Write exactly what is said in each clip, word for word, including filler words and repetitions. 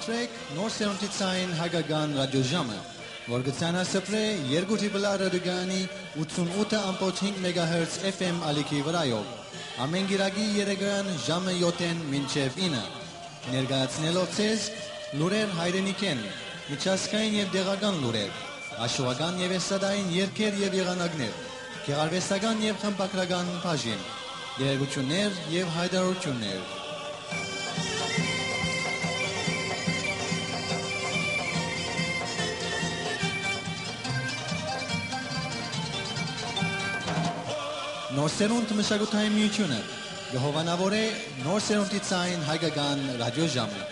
Սրեք Նոր Սերունդի Ցայն Հայկական Ռադիոժամը, որ կը ցանասփռէ երկու Տրիպլ Ա ռադիոկայանի ութսուն ութը ամբողջ հինգ մեգահերց F M ալիքի վրայով, ամէն կիրակի երեկոյան ժամը յոթ մինչեւ ինը, ներկայացնելով ձեզ լուրեր հայրենիքէն, միջազգային եւ տեղական լուրեր, աշուական եւ էստրադային երգեր եւ եղանակներ, գեղարուեստական եւ խմբագրական բաժին, տեղեկութիւններ եւ յայտարարութիւններ։ Նոր Սերունդ մշակութային միութիւնը կը հովանաւորէ Նոր Սերունդի Ցայն Հայկական Ռադիոժամը։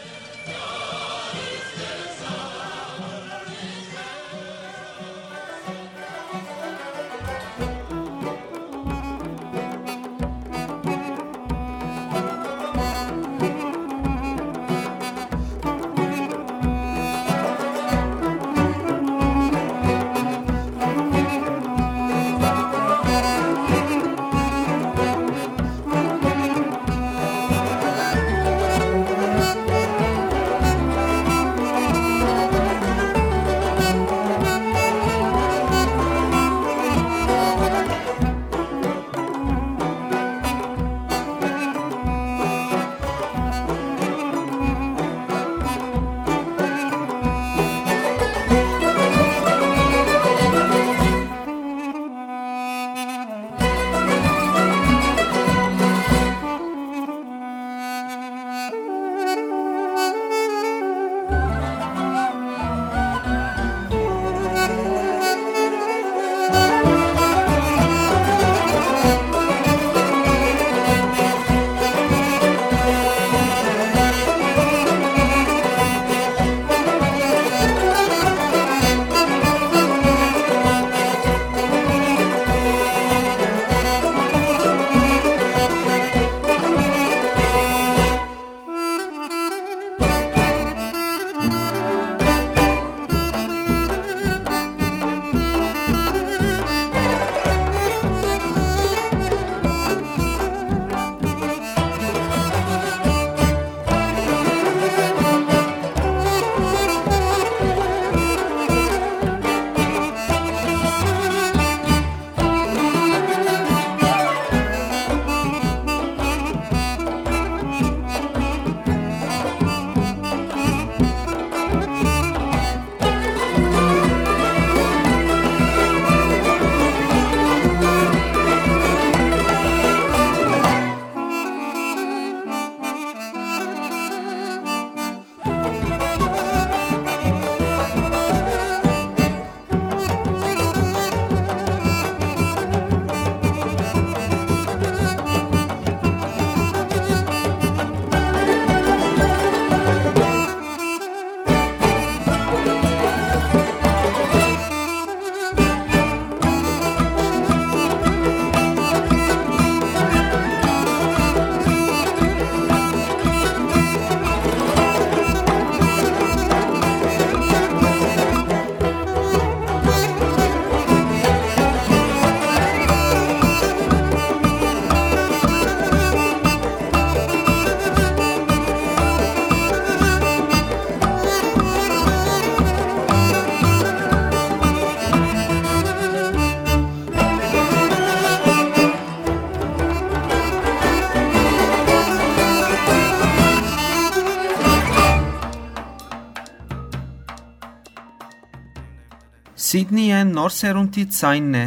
Սիդնիը Նոր Սերունդի Ցայնն է։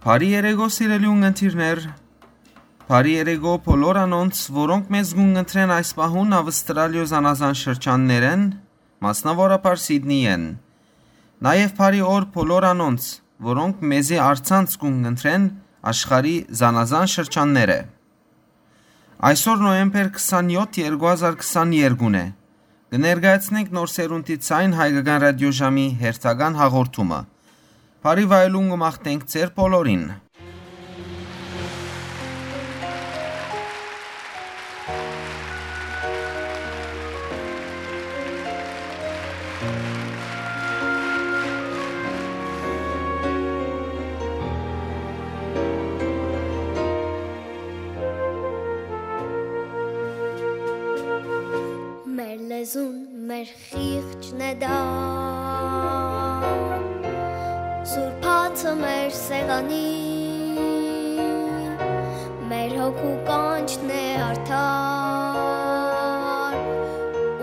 Բարի երեկո, սիրելի ունգընտիրներ։ Բարի երեկո բոլոր անոնց, որոնք մեզ կունգընտրեն այս պահուն Ավստրալիոյ զանազան շրջաններէն, մասնաւորաբար Սիդնիէն։ Նաեւ բարի օր բոլոր անոնց, որոնք մեզի առցանց կունգընտրեն աշխարհի զանազան շրջաններէ։ Այսօր նոյեմբեր քսանյոթ, երկու հազար քսաներկուն է։ Կը ներկայացնենք Նոր Սերունդի Ցայն Հայկական Ռադիոժամի հերթական հաղորդումը։ Բարի վայելուն կը մաղթենք ձեր բոլորին։ Մեր լեզուն, մեր սեղանի, մեր հոգու կանչն է արդար,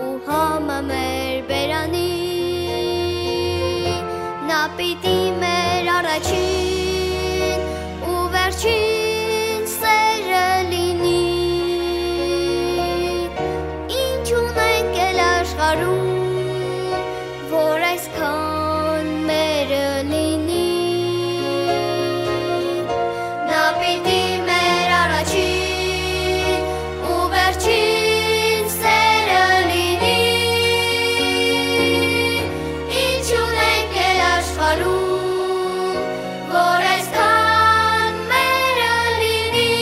ու համը մեր բերանի, նա պիտի մեր առաջին ու վերջին սերը լինի։ Ինչ ունենք էլ աշխարհում, որ այսքան մերը լինի, նա պիտի մեր առաջին ու վերջին սերը լինի։ Ինչ ունենք էլ աշխարհում, որ այսքան մերը լինի,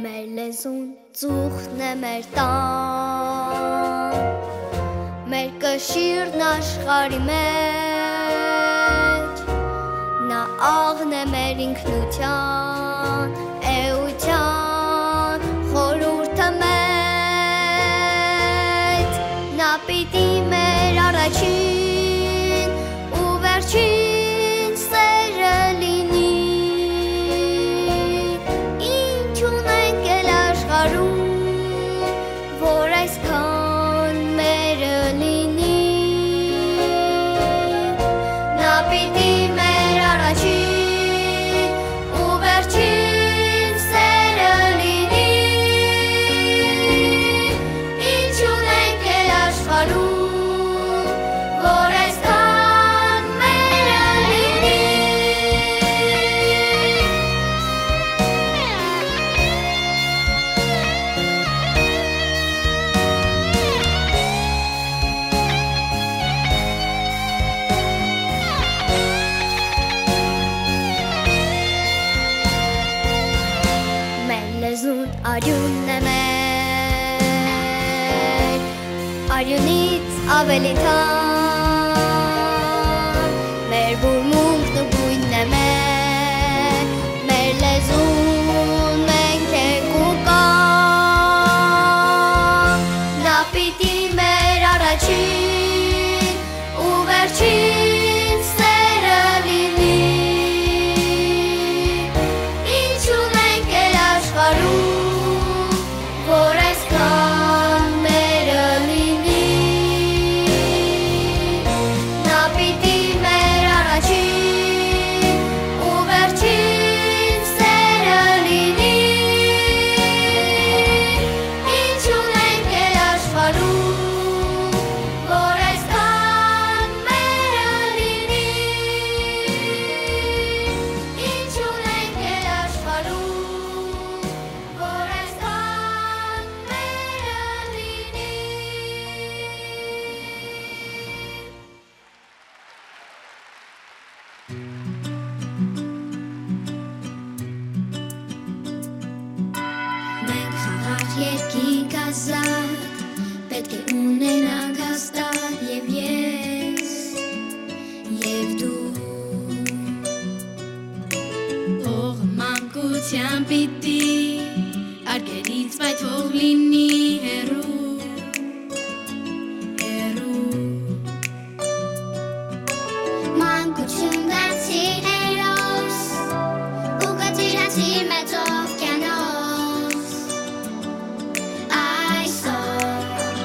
մեր լեզուն ծուխն է մեր տան, մեր կշիռն աշխարհի մեջ, նա աղն է մեր ինքնության, էության խորհուրդը մեծ, նա պիտի մեր առաջին ու վերջին սերը լինի։ Ինչ ունենք էլ աշխարհում, որ այսքան մերը լինի, նա պիտի մեր առաջին ու վերջին սերը լինի։ Ինչ ունենք էլ աշխարհում, որ այսքան մերը լինի։ Մեր լեզուն արիւնն է մեր, արիւնից աւելի թանկ, մեր բուրմունքն ու գոյնն է մեր, մեր լեզուն մենք ենք ու կա, նա պիտի մեր առաջին ու վերջին սերը լինի։ Ինչ ունենք էլ աշխարհում, որ այսքան մերը լինի, նա պիտի մեր առաջին ու վերջին սերը լինի։ Ինչ ունենք էլ աշխարհում, որ այսքան մերը լինի, ինչ ունենք էլ աշխարհում, որ այսքան մերը լինի։ Մենք խաղաղ երկինք ազատ, պէտք է ունենանք հաստատ և ես, և դու։ Օղ մանկության պիտի արկերից պայթող լինի հեռու, հեռու։ Մանկություն դարձի հերոս ու կծիրացի մեծ օվկիանոս։ Այսօր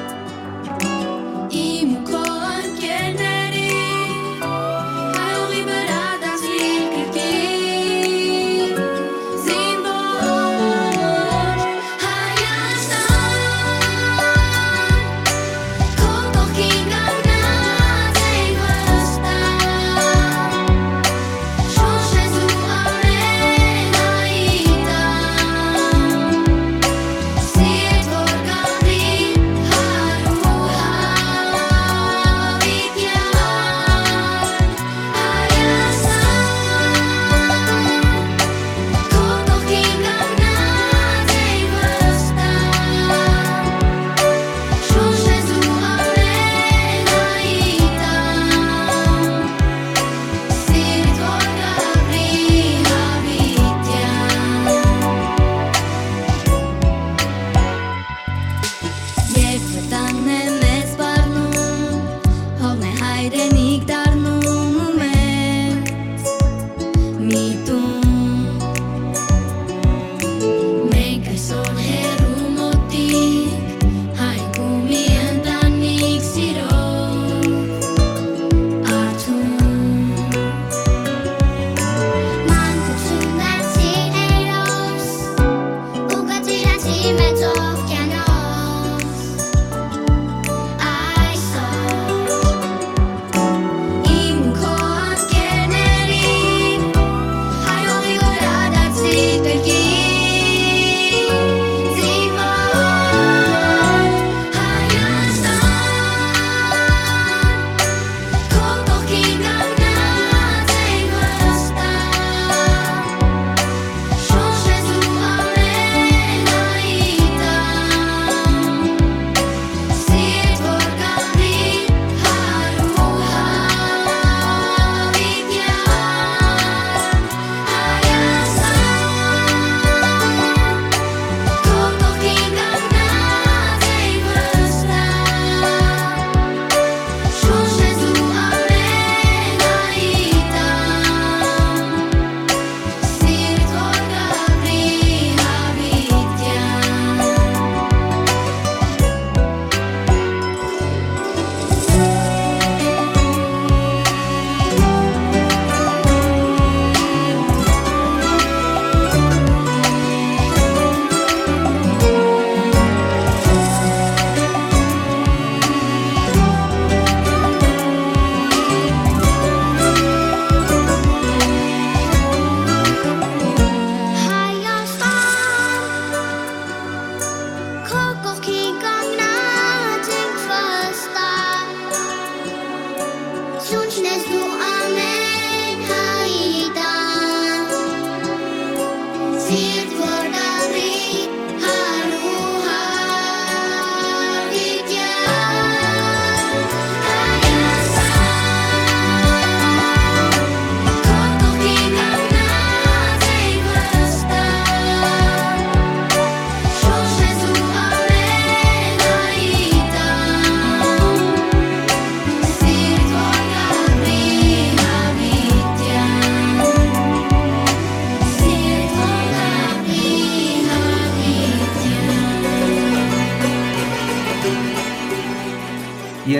իմ ու քո ընկերների հայողի վրա դարձի կրկին զինվոր Հայաստան, քո կողքին կանգնած ենք վստահ։ Շունչ ես դու ամենայի տան, սիրտ որ կամրի հարու հավիտյան։ Հայաստան, քո կողքին կանգնած ենք վստահ։ Շունչ ես դու ամենայի տան, սիրտ որ կամրի հավիտյան։ Երբ վտանգն է մեզ սպառնում, հողն է հայրենիք դառնում ու մեր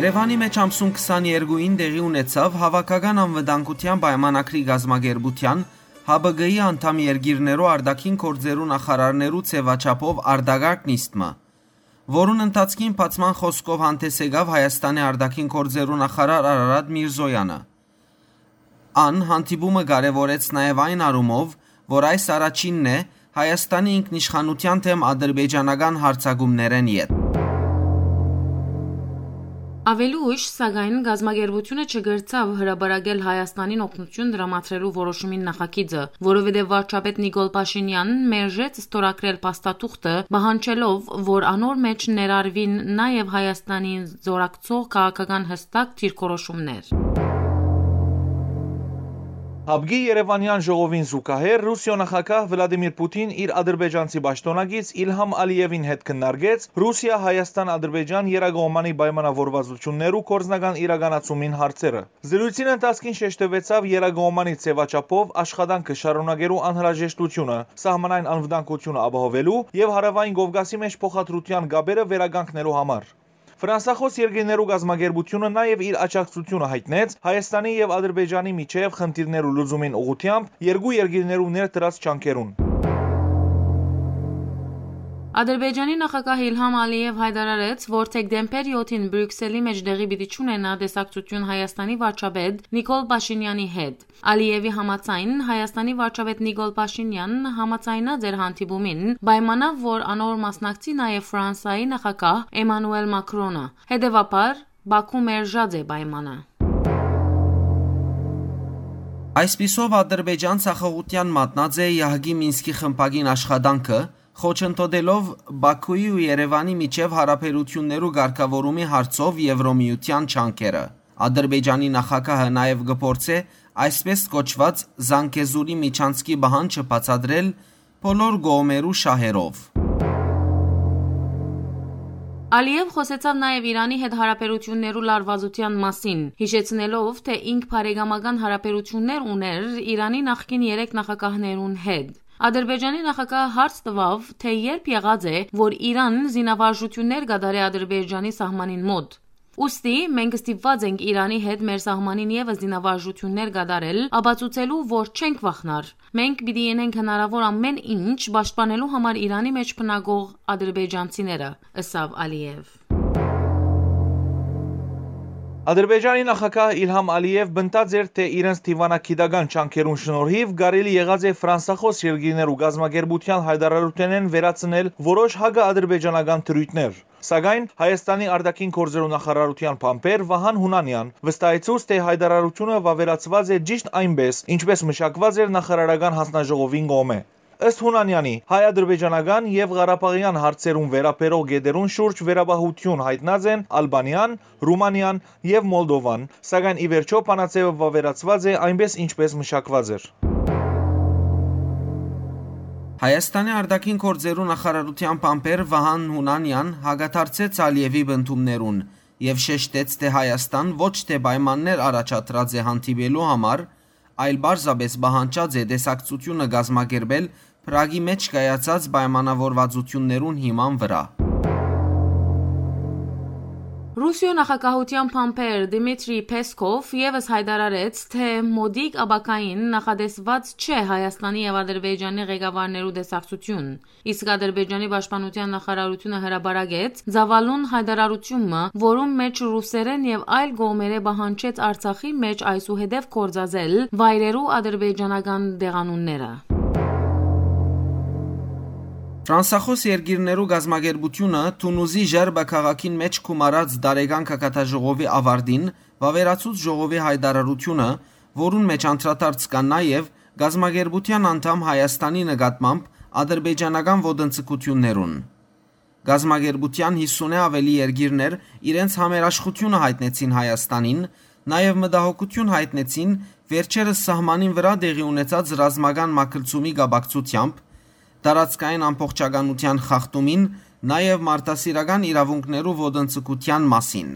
Երեւանի մէջ ամսուն քսաներկուին տեղի ունեցաւ Հաւաքական անվտանգութեան պայմանագրի կազմակերպութեան Հ Բ Կ-ի անդամ երկիրներու արտաքին գործերու նախարարներու ձեւաչափով արտակարգ նիստ մը, որուն ընթացքին բացման խօսքով հանդէս եկաւ Հայաստանի արտաքին գործերու նախարար Արարատ Միրզոյանը։ Ան հանդիպումը կարեւորեց նաեւ այն առումով, որ այս առաջինն է Հայաստանի ինքնիշխանութեան դէմ ադրբեջանական յարձակումներէն ետք։ Աւելի ուշ, սակայն, կազմակերպութիւնը չկրցաւ հրապարակել Հայաստանին օգնութիւն տրամադրելու որոշումին նախագիծը, որովհետեւ վարչապետ Նիկոլ Փաշինեան մերժեց ստորագրել փաստաթուղթը, պահանջելով, որ անոր մէջ ներառուին նաեւ Հայաստանին զօրակցող քաղաքական յստակ դիրքորոշումներ։ Հապկի Երեւանեան ժողովին զուգահեռ Ռուսիոյ նախագահ Վլադիմիր Պուտին իր ադրբեջանցի պաշտօնակից Իլհամ Ալիևին հետ քննարկեց Ռուսիա-Հայաստան-Ադրբեջան եռակողմանի պայմանավորվածություններու գործնական իրականացումին հարցերը։ Զրոյցին ընթացքին շեշտուեցաւ եռակողմանի ձեւաչափով աշխատանքը շարունակելու անհրաժեշտութիւնը, սահմանային անվտանգութիւնը ապահովելու եւ Հարաւային Կովկասի մէջ փոխադրութեան կապերը վերականգնելու համար։ Ֆրանսախօս երկիրներու կազմակերպութիւնը նաեւ իր աջակցութիւնը յայտնեց Հայաստանի եւ Ադրբեջանի միջեւ խնդիրներու լուծումին ուղղութեամբ երկու երկիրներու ներդրած ջանքերուն։ Ադրբեջանի նախագահ Իլհամ Ալիեւ յայտարարեց, որ դեկտեմբեր յոթին Բրիւքսելի մէջ տեղի պիտի չունենայ տեսակցութիւն Հայաստանի վարչապետ Նիկոլ Փաշինեանի հետ։ Ալիեւի համաձայն, Հայաստանի վարչապետ Նիկոլ Փաշինեան համաձայնած էր հանդիպումին, պայմանաւ, որ անոր մասնակցի նաեւ Ֆրանսայի նախագահ Էմանուել Մակրոնը։ Հետեւաբար, Բաքու մերժած է պայմանը։ Այսպիսով, Ադրբեջան ձախողութեան մատնած է Յահկի Մինսկի խմբակին աշխատանքը, խոչընդոտելով Բաքուի ու Երեւանի միջեւ յարաբերութիւններու կարգաւորումի հարցով Եվրոմիութեան ջանքերը։ Ադրբեջանի նախագահը նաեւ կը փորձէ այսպէս կոչուած Զանգեզուրի միջանցքի պահանջը բացատրել բոլոր կողմերու շահերով։ Ալիեւ խօսեցաւ նաեւ Իրանի հետ յարաբերութիւններու լարուածութեան մասին, յիշեցնելով, թէ ինք բարեկամական յարաբերութիւններ ունէր Իրանի նախկին երեք նախագահներուն հետ։ Ադրբեջանի նախագահը հարց տուաւ, թէ երբ եղած է, որ Իրան զինավարժութիւններ կատարէ Ադրբեջանի սահմանին մօտ։ Ուստի մենք ստիպված ենք Իրանի հետ մեր սահմանին եւս զինավարժութիւններ կատարել, ապացուցելու, որ չենք վախնար։ Մենք պիտի ընենք հնարաւոր ամէն ինչ պաշտպանելու համար Իրանի մէջ բնակող ադրբեջանցիները, ըսաւ Ալիեւ։ Ադրբեջանի նախագահ Իլհամ Ալիեւ պնդած էր, թէ իրենց դիվանագիտական ջանքերուն շնորհիւ կարելի եղած է ֆրանսախօս երկիրներու կազմակերպութեան յայտարարութենէն վերացնել որոշ հակաադրբեջանական դրոյթներ։ Սակայն Հայաստանի արտաքին գործերու նախարարութեան բանբեր Վահան Հունանեան վստահեցուց, թէ յայտարարութիւնը վաւերացուած է ճիշտ այնպէս, ինչպէս մշակուած էր նախարարական յանձնաժողովին կողմէ։ Ըստ Հունանեանի, հայ-ադրբեջանական եւ ղարաբաղեան հարցերուն վերաբերող կետերուն շուրջ վերապահութիւն յայտնած են Ալբանիան, Ռումանիան եւ Մոլդովան, սակայն ի վերջոյ բանաձեւը վաւերացուած է այնպէս, ինչպէս մշակուած էր։ Հայաստանի արտաքին գործերու նախարարութեան բանբեր Վահան Հունանեան հակադարձեց Ալիեւի պնդումներուն եւ շեշտեց, թէ Հայաստան ոչ թէ պայմաններ առաջադրած է հանդիպելու համար, այլ պարզապէս պահանջած է տեսակցութիւնը կազմակերպել Պրագի մէջ կայացած պայմանաւորվածութիւններուն հիման վրայ։ Ռուսիոյ նախագահութեան բանբեր Դմիտրի Փեսքով եւս յայտարարեց, թէ մօտիկ ապագային նախատեսուած չէ Հայաստանի եւ Ադրբեջանի ղեկավարներու տեսակցութիւն։ Իսկ Ադրբեջանի պաշտպանութեան նախարարութիւնը հրապարակեց ծաւալուն յայտարարութիւն մը, որուն մէջ ռուսերէն եւ այլ կողմերէ պահանջեց Արցախի մէջ այսուհետեւ գործածել վայրերու ադրբեջանական տեղանունները։ Ֆրանսախօս երկիրներու կազմակերպութիւնը Թունուզի Ժերբա քաղաքին մէջ գումարած տարեկան գագաթաժողովի աւարտին վաւերացուց ժողովի յայտարարութիւնը, որուն մէջ անդրադարձ կան նաեւ կազմակերպութեան անդամ Հայաստանի նկատմամբ ադրբեջանական ոտնձգութիւններուն։ Կազմակերպութեան յիսունէ աւելի երկիրներ իրենց համերաշխութիւնը յայտնեցին Հայաստանին, նաեւ մտահոգութիւն յայտնեցին վերջերս սահմանին վրայ տեղի ունեցած ռազմական մագլցումի կապակցութեամբ, տարածքային ամբողջականութեան խախտումին, նաեւ մարդասիրական իրաւունքներու ոտնձգութեան մասին։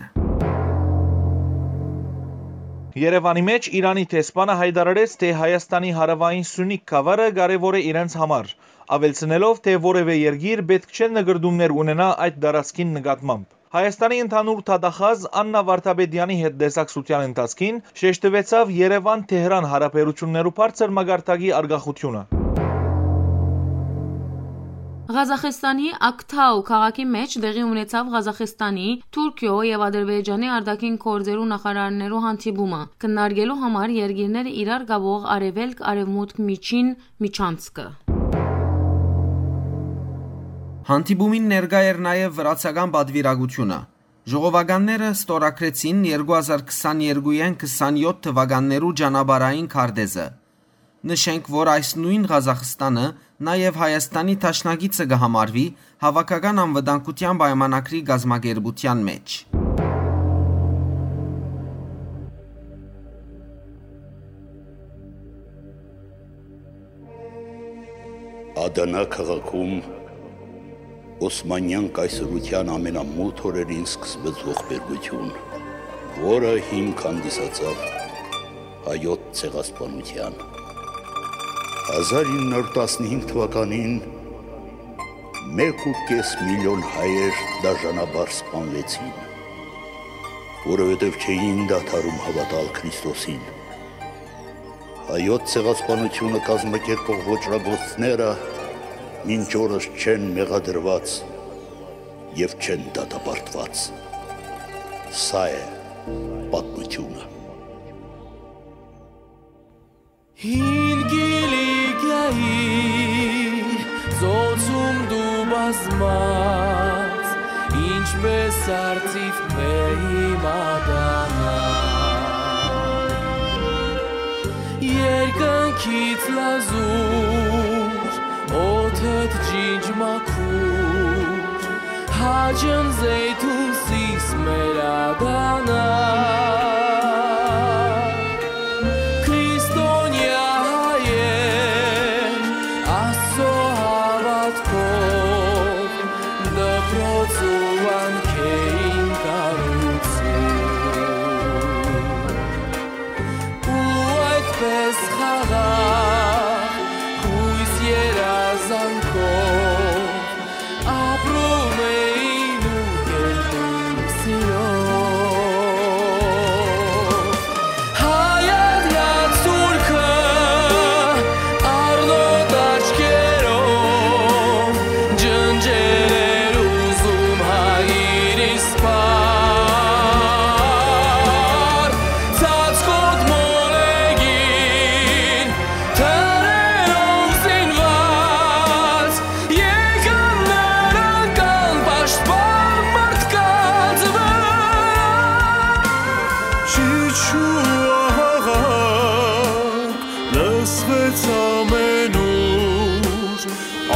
Երեւանի մէջ Իրանի դեսպանը յայտարարեց, թէ Հայաստանի հարաւային Սունիկ գաւառը կարեւոր է իրենց համար, աւելցնելով, թէ որեւէ երկիր պէտք չէ նկրտումներ ունենայ այդ տարածքին նկատմամբ։ Հայաստանի ընդհանուր դատախազ Աննա Վարդապետեանի հետ տեսակցութեան ընթացքին շեշտուեցաւ Երեւան-Թեհրան յարաբերութիւններու բարձր մակարդակի արկախութիւնը։ Ղազախստանի Ակթաու քաղաքի մէջ տեղի ունեցաւ Ղազախստանի, Թուրքիոյ եւ Ադրբեջանի արտաքին գործերու նախարարներու հանդիպումը, քննարկելու համար երկիրները իրար կապող արեւելք-արեւմուտք միջին միջանցքը։ Հանդիպումին ներկայ էր նաեւ վրացական պատվիրակութիւնը։ Ժողովականները ստորագրեցին երկու հազար քսաներկուեան քսանեօթ թուականներու ճանապարհային քարտեզը։ Նշենք, որ այս նոյն Ղազախստանը նաեւ Հայաստանի դաշնակիցը կը համարուի Հաւաքական անվտանգութեան պայմանագրի կազմակերպութեան մէջ։ Ադանա քաղաքում Օսմանեան կայսրութեան ամենամութ օրերին սկսվեց ողբերգութիւն, որը հիմք հանդիսացաւ հայոց ցեղասպանութեան։ Հազար ինը հարյուր տասնհինգ թուականին մէկ ու կէս միլիոն հայեր դաժանաբար սպանուեցին, որովհետեւ չէին դադարում հաւատալ Քրիստոսին։ Հայոց ցեղասպանութիւնը կազմակերպող ոճրագործները մինչ օրս չեն մեղադրուած եւ չեն դատապարտուած։ Սա է պատմութիւնը։ Հին Կիլիկիայի ծոցում դու բազմած, ինչպես արծիվ մեղի մատանա։ Երկնքից լազուր, օդդ ջինջ մաքուր, հաճն զեյթուն սիս մեր ադանա։ Քրիստոնեայ հայեր, Աստծո հաւատքով, դպրոց ու վանքէին կառուցում։ Ու այդպես խաղաղ, յոյս երազանքով ապրում էին ու կերտում սիրով։ Հայատյաց Թուրքը առնոտ աչքերով ջնջել էր ուզում հայրիս պար, ծածկոտ մոլեգին թրերով զինված, եկան նրանք անպաշտպան մարդկանց վրա։ Ճիչ ու աղաղակ լսվեց ամենուր,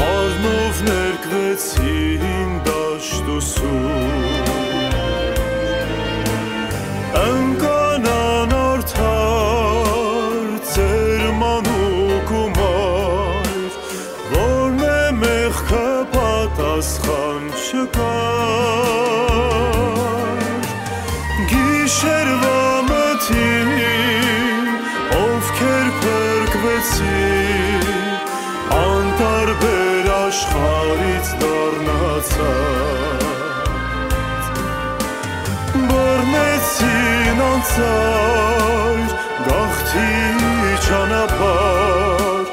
առնով ներկվեցին դաշտ ու սուր։ Ընկան անարդար ծեր մանուկ ու մայր, որմէ մեղքը պատասխան չկար։ Գիշերուայ մթին, ովքեր փրկուեցին, անտարբեր աշխարհից դառնացած, բռնեցին անծայր գաղթի ճանապարհ,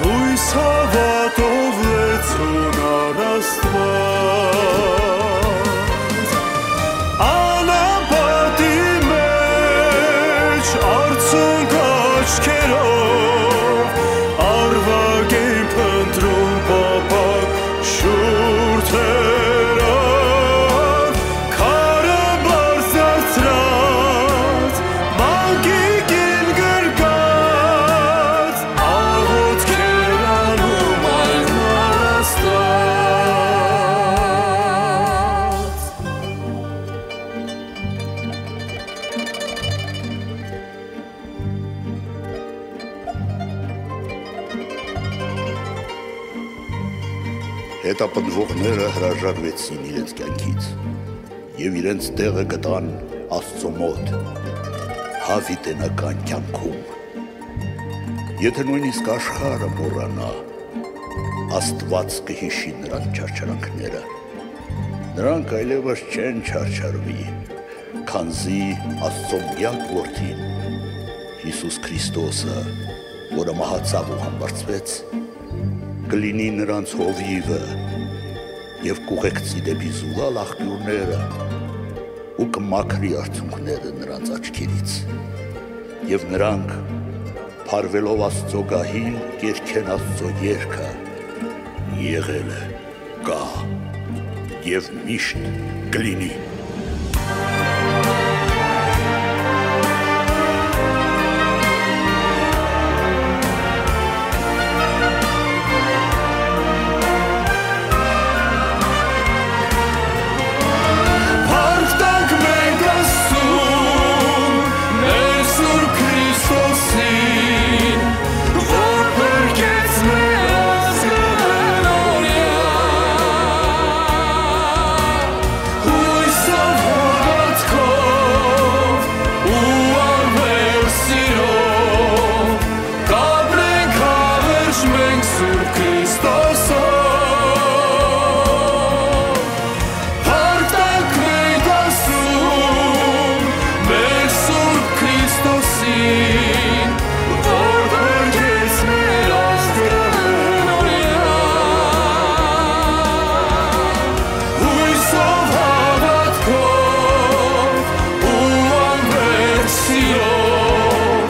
յոյս հաւատով լեցուն առ Աստուած։ Անապատի մէջ արցունք աչքերով, արուակ էին փնտռում փափաք շուրթերով, քարը բարձրացրած, մանկի կին գրկած, աղօթքեր անում այլմար Աստուած։ Հետապնդողները հրաժարվեցին իրենց կյանքից եւ իրենց տեղը գտան Աստծո մոտ յաւիտենական կյանքում։ Եթէ նոյնիսկ աշխարհը մոռանայ, Աստուած կը յիշի նրանց չարչարանքները։ Նրանք այլեւս չեն չարչարուի, քանզի Աստծուն միակ Որդին, Յիսուս Քրիստոսը, որը մահացաւ ու համբարձուեց, կը լինի նրանց հովիւը եւ կ'ուղեկցի դէպի զուլալ աղբիւրները ու կը մաքրի արցունքները նրանց աչքերից։ Եւ նրանք, փարուելով Աստծոյ գահին, կ'երգեն Աստծոյ երգը. «Եղել է, կայ եւ միշտ կը լինի»։ Փառք տանք մենք Աստծուն, մեր Սուրբ Քրիստոսին, որ փրկեց մեր ազգը նորյալ։ Յոյսով, հաւատքով ու անվերջ սիրով կ'ապրենք հավերժ մենք Սուրբ Քրիստոսով։ Փառք տանք մենք Աստծուն, մեր Սուրբ Քրիստոսին, որ փրկեց մեր ազգը նորյալ։ Յոյսով, հաւատքով ու անվերջ սիրով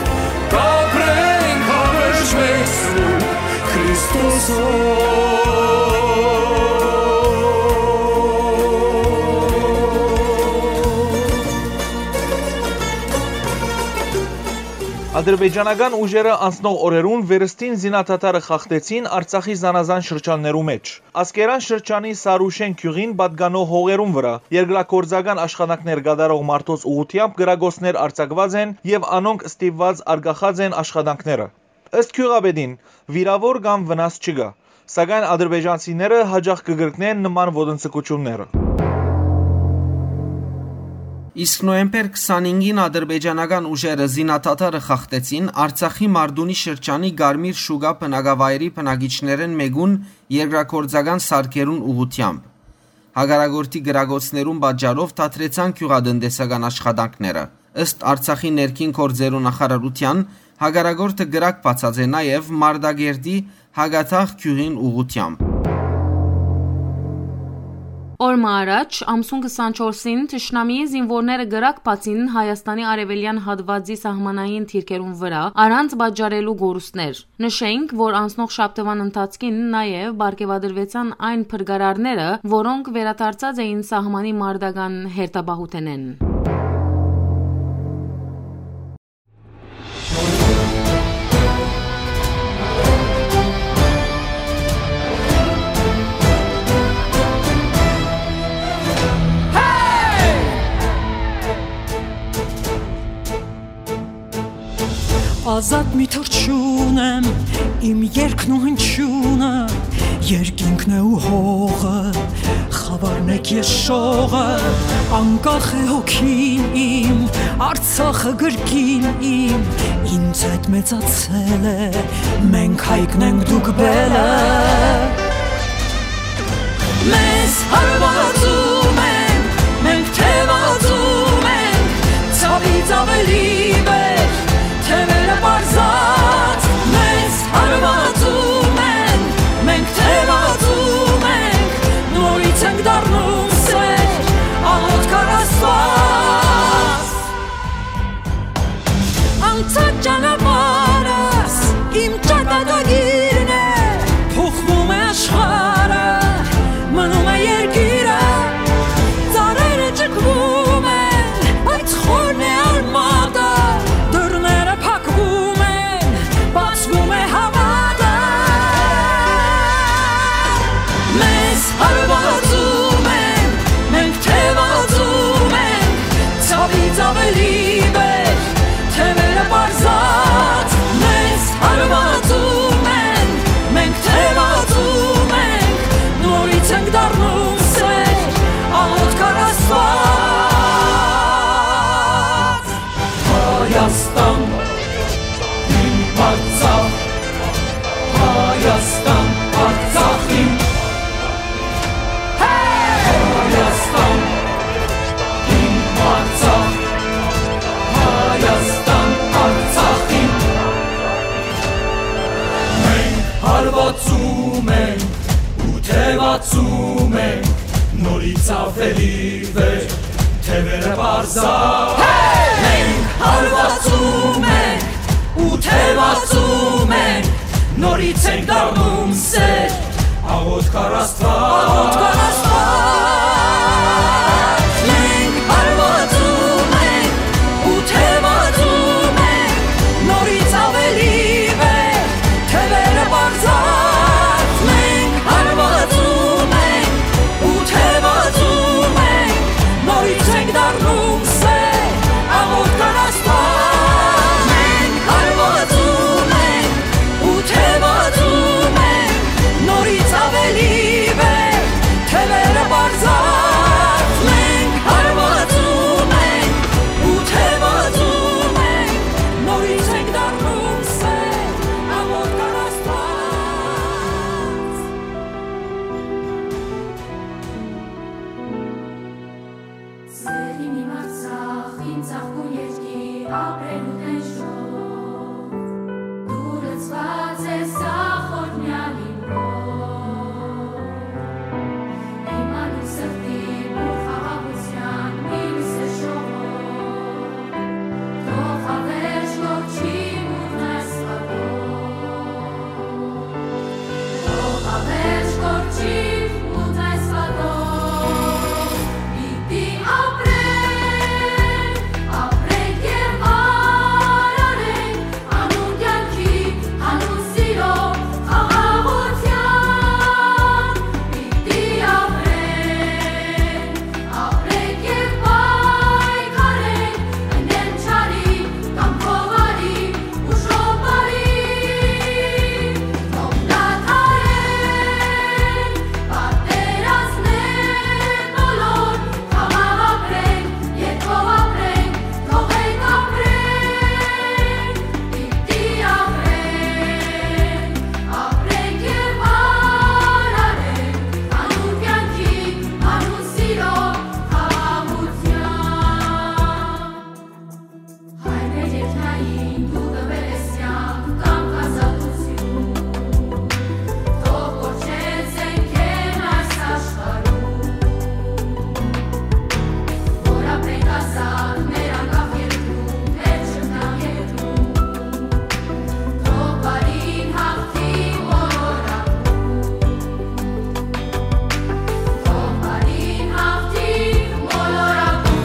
կ'ապրենք հավերժ մենք Սուրբ Քրիստոսով։ Ադրբեջանական ուժերը անցնող օրերուն վերստին զինադադարը խախտեցին Արցախի զանազան շրջաններու մէջ։ Ասկերան շրջանի Սարուշեն գիւղին պատկանող հողերուն վրայ երկրագործական աշխատանքներ կատարող մարդոց ուղղութեամբ կրակոցներ արձակուած են եւ անոնք ստիպուած արգախած են աշխատանքները։ Ըստ գիւղապետին, վիրաւոր կամ վնաս չկայ, սակայն ադրբեջանցիները յաճախ կը կրկնեն նման ոտնձգութիւնները։ Իսկ նոյեմբեր քսանհինգին ադրբեջանական ուժերը զինադադարը խախտեցին Արցախի Մարդունի շրջանի Կարմիր Շուկա բնակավայրի բնակիչներէն մէկուն երկրագործական սարքերուն ուղղութեամբ։ Հակառակորդի կրակոցներուն պատճառով դադրեցան գիւղատնտեսական աշխատանքները։ Ըստ Արցախի ներքին գործերու նախարարութեան, հակառակորդը կրակ բացած է նաեւ Մարտակերտի Հակաթաղ գիւղին ուղղութեամբ։ Օր մը առաջ, ամսուն քսանչորսին, թշնամիի զինուորները կրակ բացին Հայաստանի արեւելեան հատուածի սահմանային դիրքերուն վրայ, առանց պատճառելու կորուստներ։ Նշենք, որ անցնող շաբթուան ընթացքին նաեւ պարգեւատրուեցան այն փրկարարները, որոնք վերադարձած էին սահմանի մարտական հերթապահութենէն։ Ազատ մի թռչուն եմ, իմ երգն ու հնչիւնը, երկինքն է ու հողը, խաւարն եք ես շողը, անկախ է հոգին իմ, Արցախը կրկին իմ, ինձ հետ մեծացել է, մենք հայկն ենք, դուք բելը։ Մեզ հարվածում են, մենք թևածում ենք, ցավից ավելի վեր, թևերը պարզած, մեզ հարվածում են, մենք թևածում ենք, նորից ենք դառնում սեր, աղոթք առ Աստված։ Անցած ճանապարհս իմ ճակատագիրն է, փոխվում է աշխարհը, մնում է երկիրը, ծառերը ճկվում են, բայց խորն է արմատը, դռները փակվում են, բացվում է հավատը։ Մեզ հարվածում են, մենք թևածում ենք, ցավից ավելի վեր, թևերը պարզած, մեզ հարվածում են, մենք թևածում ենք, նորից ենք դառնում սեր, աղոթք առ Աստված։ Հայաստան, իմ Արցախ, Հայաստան, Արցախ իմ։ Հայաստան, Աւելի վեր, թեւերը պարզա։ Մենք հարվածում ենք ու թեւածում ենք, նորից ենք դառնում սեր, աղոթք առ Աստուած։ Աղոթք առ Աստուած։ Մենք հարվածում ենք ու թեւածում ենք, նորից աւելի վեր, թեւերը պարզած, մենք հարվածում ենք ու թեւածում ենք, նորից ենք դառնում սեր, աղոթք առ Աստուած։ Մենք հարվածում ենք ու թեւածում ենք, նորից աւելի վեր, թեւերը պարզած, մենք հարվածում ենք ու թեւածում ենք, նորից ենք դառնում սեր, աղոթք առ Աստուած։ Սեղին իմ Արցախ, իմ ծաղկուն երկիր, ապրելու տենչով։ Դու լցուած ես ախորնյալ իմ հոգ, իմ անուն սրտի բուռ խաղաղութեան մի լուսե շողով։ Թող հավերժ կորչի մութն այս պատով, թող հավերժ կորչի մութն այս պատով, պիտի ապրենք, ապրենք եւ արարենք, անուն կեանքի, անուն սիրո, խաղաղութեան, պիտի ապրենք, ապրենք եւ պայքարենք, ընենք չարի կամ գովարի, ուժով բարի, թող դադարեն պատերազմներ բոլոր, խաղաղ ապրենք, երկով ապրենք, թողենք ապրենք, պիտի ապրենք, ապրենք եւ արարենք, անուն կեանքի, անուն սիրո, խաղաղութեան։ Հայ մեր երկնային, դու տուեր ես կեանք, կամք, ազատութիւն, թող կոչեն զէնքէն այս աշխարհում, որ ապրենք ազատ մեր անկախ երկրում, մեր չքնաղ երկրում, թող բարին հաղթի մոլորակում, թող բարին հաղթի մոլորակում։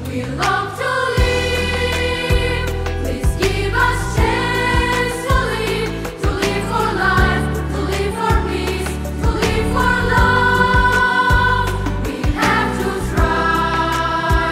We long to live. Please give us chance to live, to live for life, to live for peace, to live for love. We have to try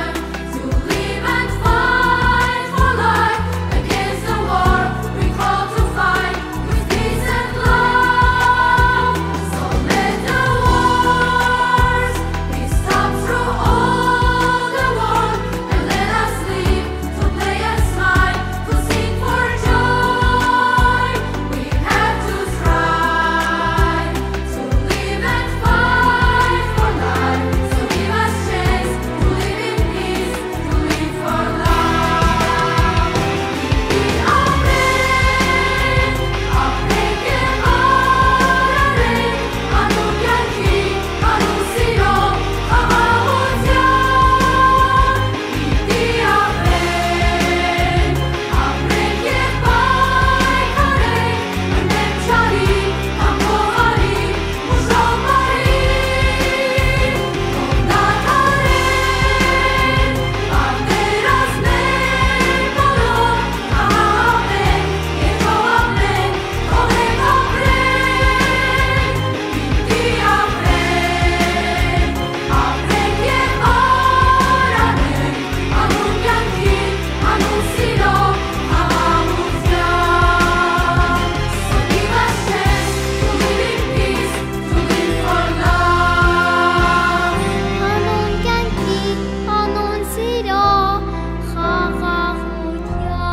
to live and fight for life against the war. We call to fight with peace and love. So let the wars be stopped through all the world, and let us live to play and smile, to sing for joy. We have to try to live and fight for life. So give us chance to live in peace, to live for love. Անուն կեանքի, անուն սիրո, խաղաղութեան։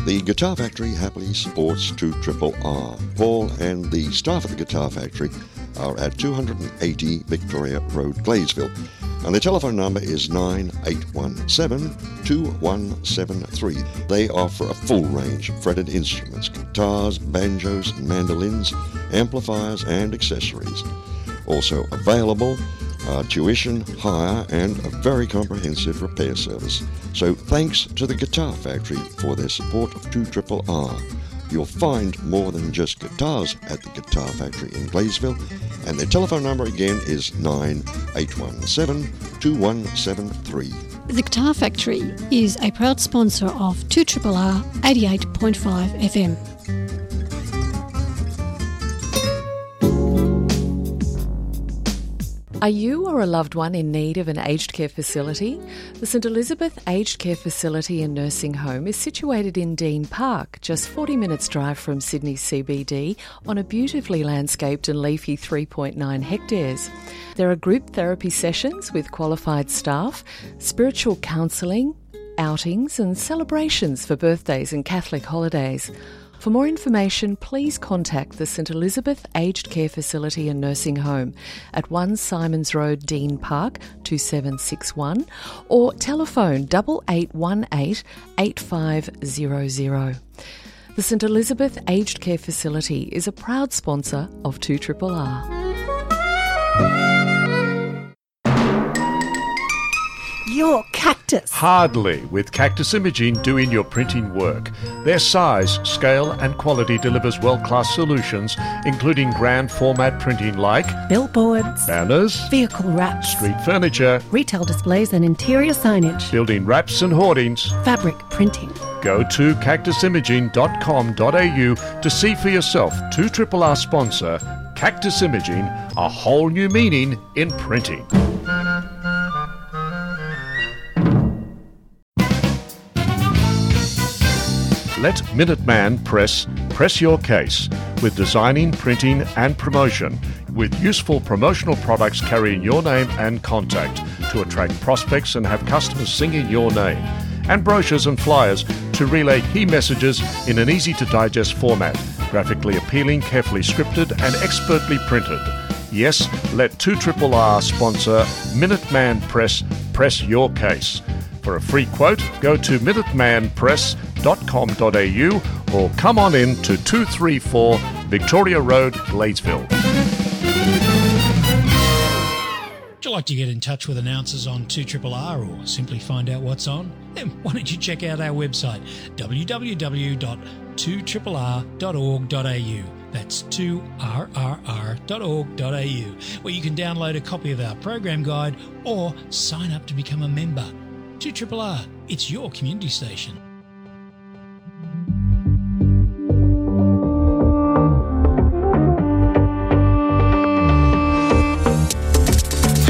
The Guitar Factory happily supports two triple R. Paul and the staff at the Guitar Factory are at two hundred and eighty Victoria Road, Gladesville. And the telephone number is nine eight one seven, two one seven three. They offer a full range of fretted instruments, guitars, banjos, mandolins, amplifiers, and accessories. Also available are tuition, hire, and a very comprehensive repair service. So thanks to the Guitar Factory for their support of two triple R. You'll find more than just guitars at the Guitar Factory in Gladesville, and their telephone number again is nine eight one seven, two one seven three. The Guitar Factory is a proud sponsor of two triple R eighty-eight point five F M. Are you or a loved one in need of an aged care facility? The St Elizabeth Aged Care Facility and Nursing Home is situated in Dean Park, just forty minutes drive from Sydney C B D, on a beautifully landscaped and leafy three point nine hectares. There are group therapy sessions with qualified staff, spiritual counselling, outings and celebrations for birthdays and Catholic holidays. For more information, please contact the St Elizabeth Aged Care Facility and Nursing Home at one Simons Road, Dean Park, two seven six one, or telephone double eight one eight, eight five zero zero. The St Elizabeth Aged Care Facility is a proud sponsor of two triple R. Your cactus. Hardly, with Cactus Imaging doing your printing work. Their size, scale, and quality delivers world-class solutions, including grand format printing like billboards, banners, vehicle wraps, street furniture, retail displays and interior signage, building wraps and hoardings, fabric printing. Go to cactus imaging dot com dot a u to see for yourself two triple R sponsor Cactus Imaging, a whole new meaning in printing. Let Minuteman Press press your case with designing, printing, and promotion, with useful promotional products carrying your name and contact to attract prospects and have customers singing your name, and brochures and flyers to relay key messages in an easy to digest format, graphically appealing, carefully scripted, and expertly printed. Yes, let two triple R sponsor Minuteman Press press your case. For a free quote, go to minuteman press dot com dot a u or come on in to two three four Victoria Road, Gladesville. Would you like to get in touch with announcers on two triple R or simply find out what's on? Then why don't you check out our website, w w w dot two triple r dot org dot a u. That's two r r r dot org dot a u, where you can download a copy of our program guide or sign up to become a member. two triple R, it's your community station.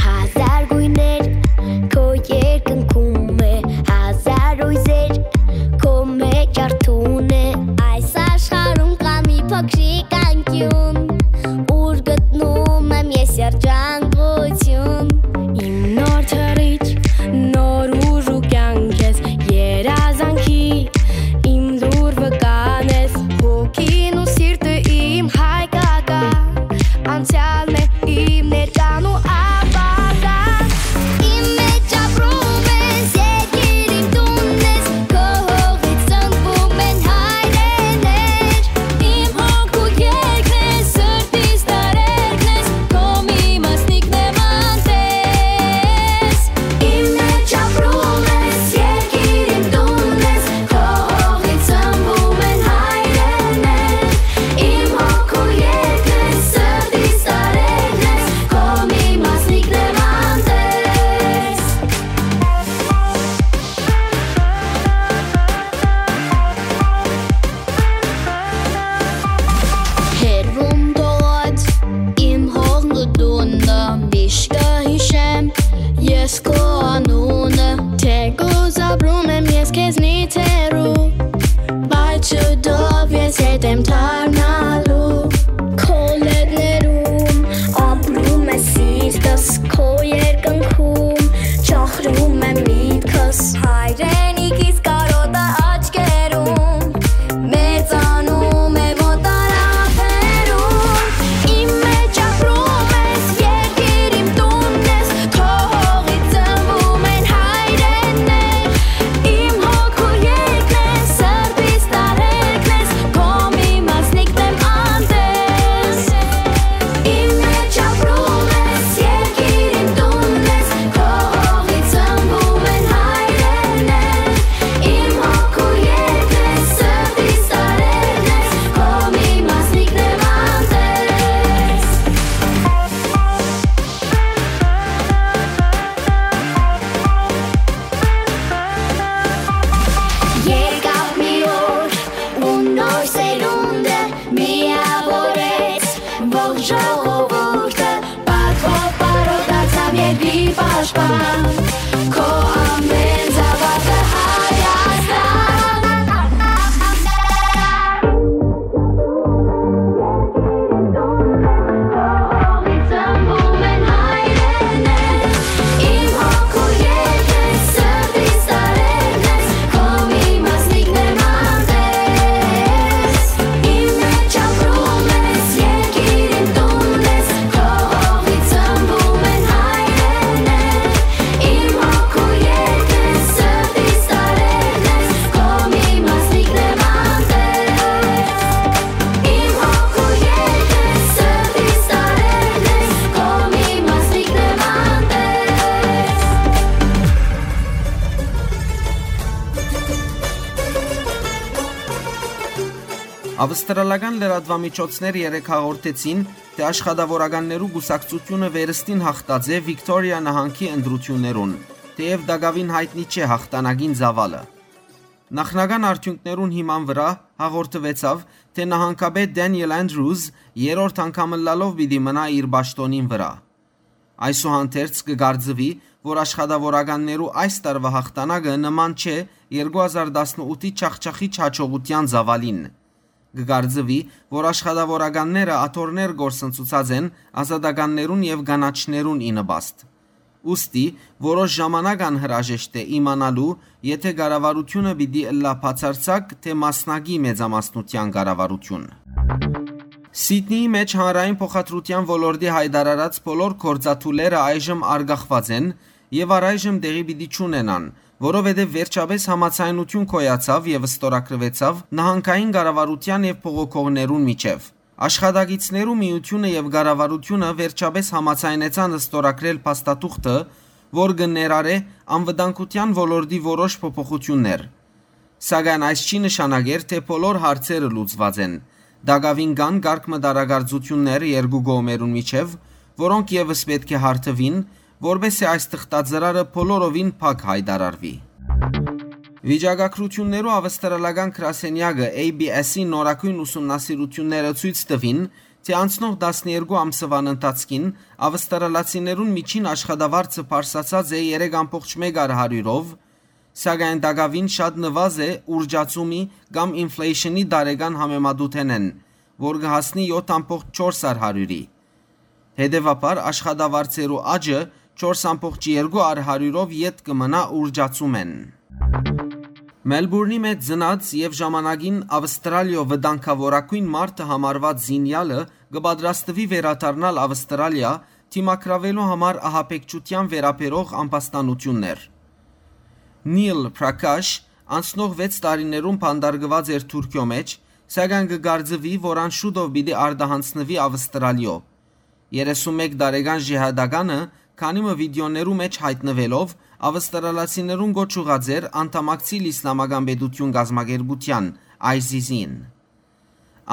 Հազար գույներ քո երկնքում է, հազար հույզեր քո մեջ արթուն է։ Այս աշխարհում կա մի փոքրիկ անկյուն, ուր գտնում եմ ես երջանկություն։ Իմ նոր թռիչ, նոր ուժ ու կյանք ես, երազանքի ժողովուրդը պատվով բարով դարձան երկրի պաշտպան։ Քո ամեն զաւակը Հայաստան։ Ծնվում են հայրենը, իմ հոգու երկրը, սրտիս տարերն ես, քո մի մասնիկն եմ անտես։ Իմ մեջ ապրում ես, երկիր իմ տունն ես, քո հողից ծնվում են հայրենը, իմ հոգու երկրը, սրտիս տարերն ես, քո մի մասնիկն եմ անտես։ Իմ հոգու երկրը, սրտիս տարերն ես, քո մի մասնիկն եմ անտես։ Ավստրալական լրատուամիջոցներ երեկ հաղորդեցին, թէ Աշխատաւորականներու կուսակցութիւնը վերստին յաղթած է Վիկտորիա նահանգի ընտրութիւններուն, թէեւ տակաւին յայտնի չէ յաղթանակին ծաւալը։ Նախնական արդիւնքներուն հիման վրայ հաղորդուեցաւ, թէ նահանգապետ Դենիել Անդրուզ երրորդ անգամ ըլլալով պիտի մնայ իր պաշտօնին վրայ։ Այսուհանդերձ կը կարծուի, որ աշխատաւորականներու այս տարուայ յաղթանակը նման չէ երկու հազար տասնութի չախչախիչ յաջողութեան ծաւալին։ Կը կարծուի, որ աշխատաւորականները աթոռներ կորսնցուցած են ազատականներուն եւ կանաչներուն ի նպաստ։ Ուստի, որոշ ժամանակ անհրաժեշտ է իմանալու, եթէ կառավարութիւնը պիտի ըլլայ բացարձակ, թէ մասնակի մեծամասնութեան կառավարութիւն։ Սիդնիի մէջ հանրային փոխադրութեան ոլորտի յայտարարած բոլոր գործադուլերը այժմ արգախուած են եւ առայժմ տեղի պիտի չունենան, որովհետեւ վերջապէս համաձայնութիւն գոյացաւ եւ ստորագրուեցաւ նահանգային կառավարութեան եւ բողոքողներուն միջեւ։ Աշխատակիցներու միութիւնը եւ կառավարութիւնը վերջապէս համաձայնեցան ստորագրել փաստաթուղթը, որ կը ներառէ անվտանգութեան ոլորտի որոշ փոփոխութիւններ։ Սակայն այս չի նշանակեր, թէ բոլոր հարցերը լուծուած են։ Տակաւին կան կարգ մը տարակարծութիւններ երկու կողմերուն միջեւ, որոնք եւս պէտք է հարթուին, որպէս զի այս թղթածրարը բոլորովին փակ յայտարարուի։ Վիճակագրութիւններու ավստրալական գրասենեակը A B S-ի նորագոյն ուսումնասիրութիւնները ցոյց տուին, թէ անցնող տասներկու ամսուան ընթացքին ավստրալացիներուն միջին աշխատավարձը բարձրացած է երեք ամբողջ մեկ առ հարիւրով, սակայն տակաւին շատ նուազ է ուրճացումի կամ ինֆլեյշնի տարեկան համեմատութենէն, որ կը հասնի յոթ ամբողջ չորս առ հարիւրի։ Հետեւաբար աշխատավարձերու աճը չորս ամբողջ երկու առ հարիւրով ետ կը մնայ ուրճացումէն։ Մելբուրնի մէջ ծնած եւ ժամանակին Ավստրալիոյ վտանգաւորագոյն մարդը համարուած զինեալը կը պատրաստուի վերադառնալ Ավստրալիա՝ դիմագրաւելու համար ահաբեկչութեան վերաբերող ամբաստանութիւններ։ Նիլ Պրակաշ անցնող վեց տարիներուն բանտարկուած էր Թուրքիոյ մէջ, սակայն կը կարծուի, որ ան շուտով պիտի արտահանձնուի Ավստրալիոյ։ Երեսունմեկ տարեկան ժիհադականը քանի մը վիդէօներու մէջ յայտնուելով՝ ավստրալացիներուն կոչ ուղղած էր անդամակցիլ Իսլամական պետութիւն կազմակերպութեան՝ ISIS-ին։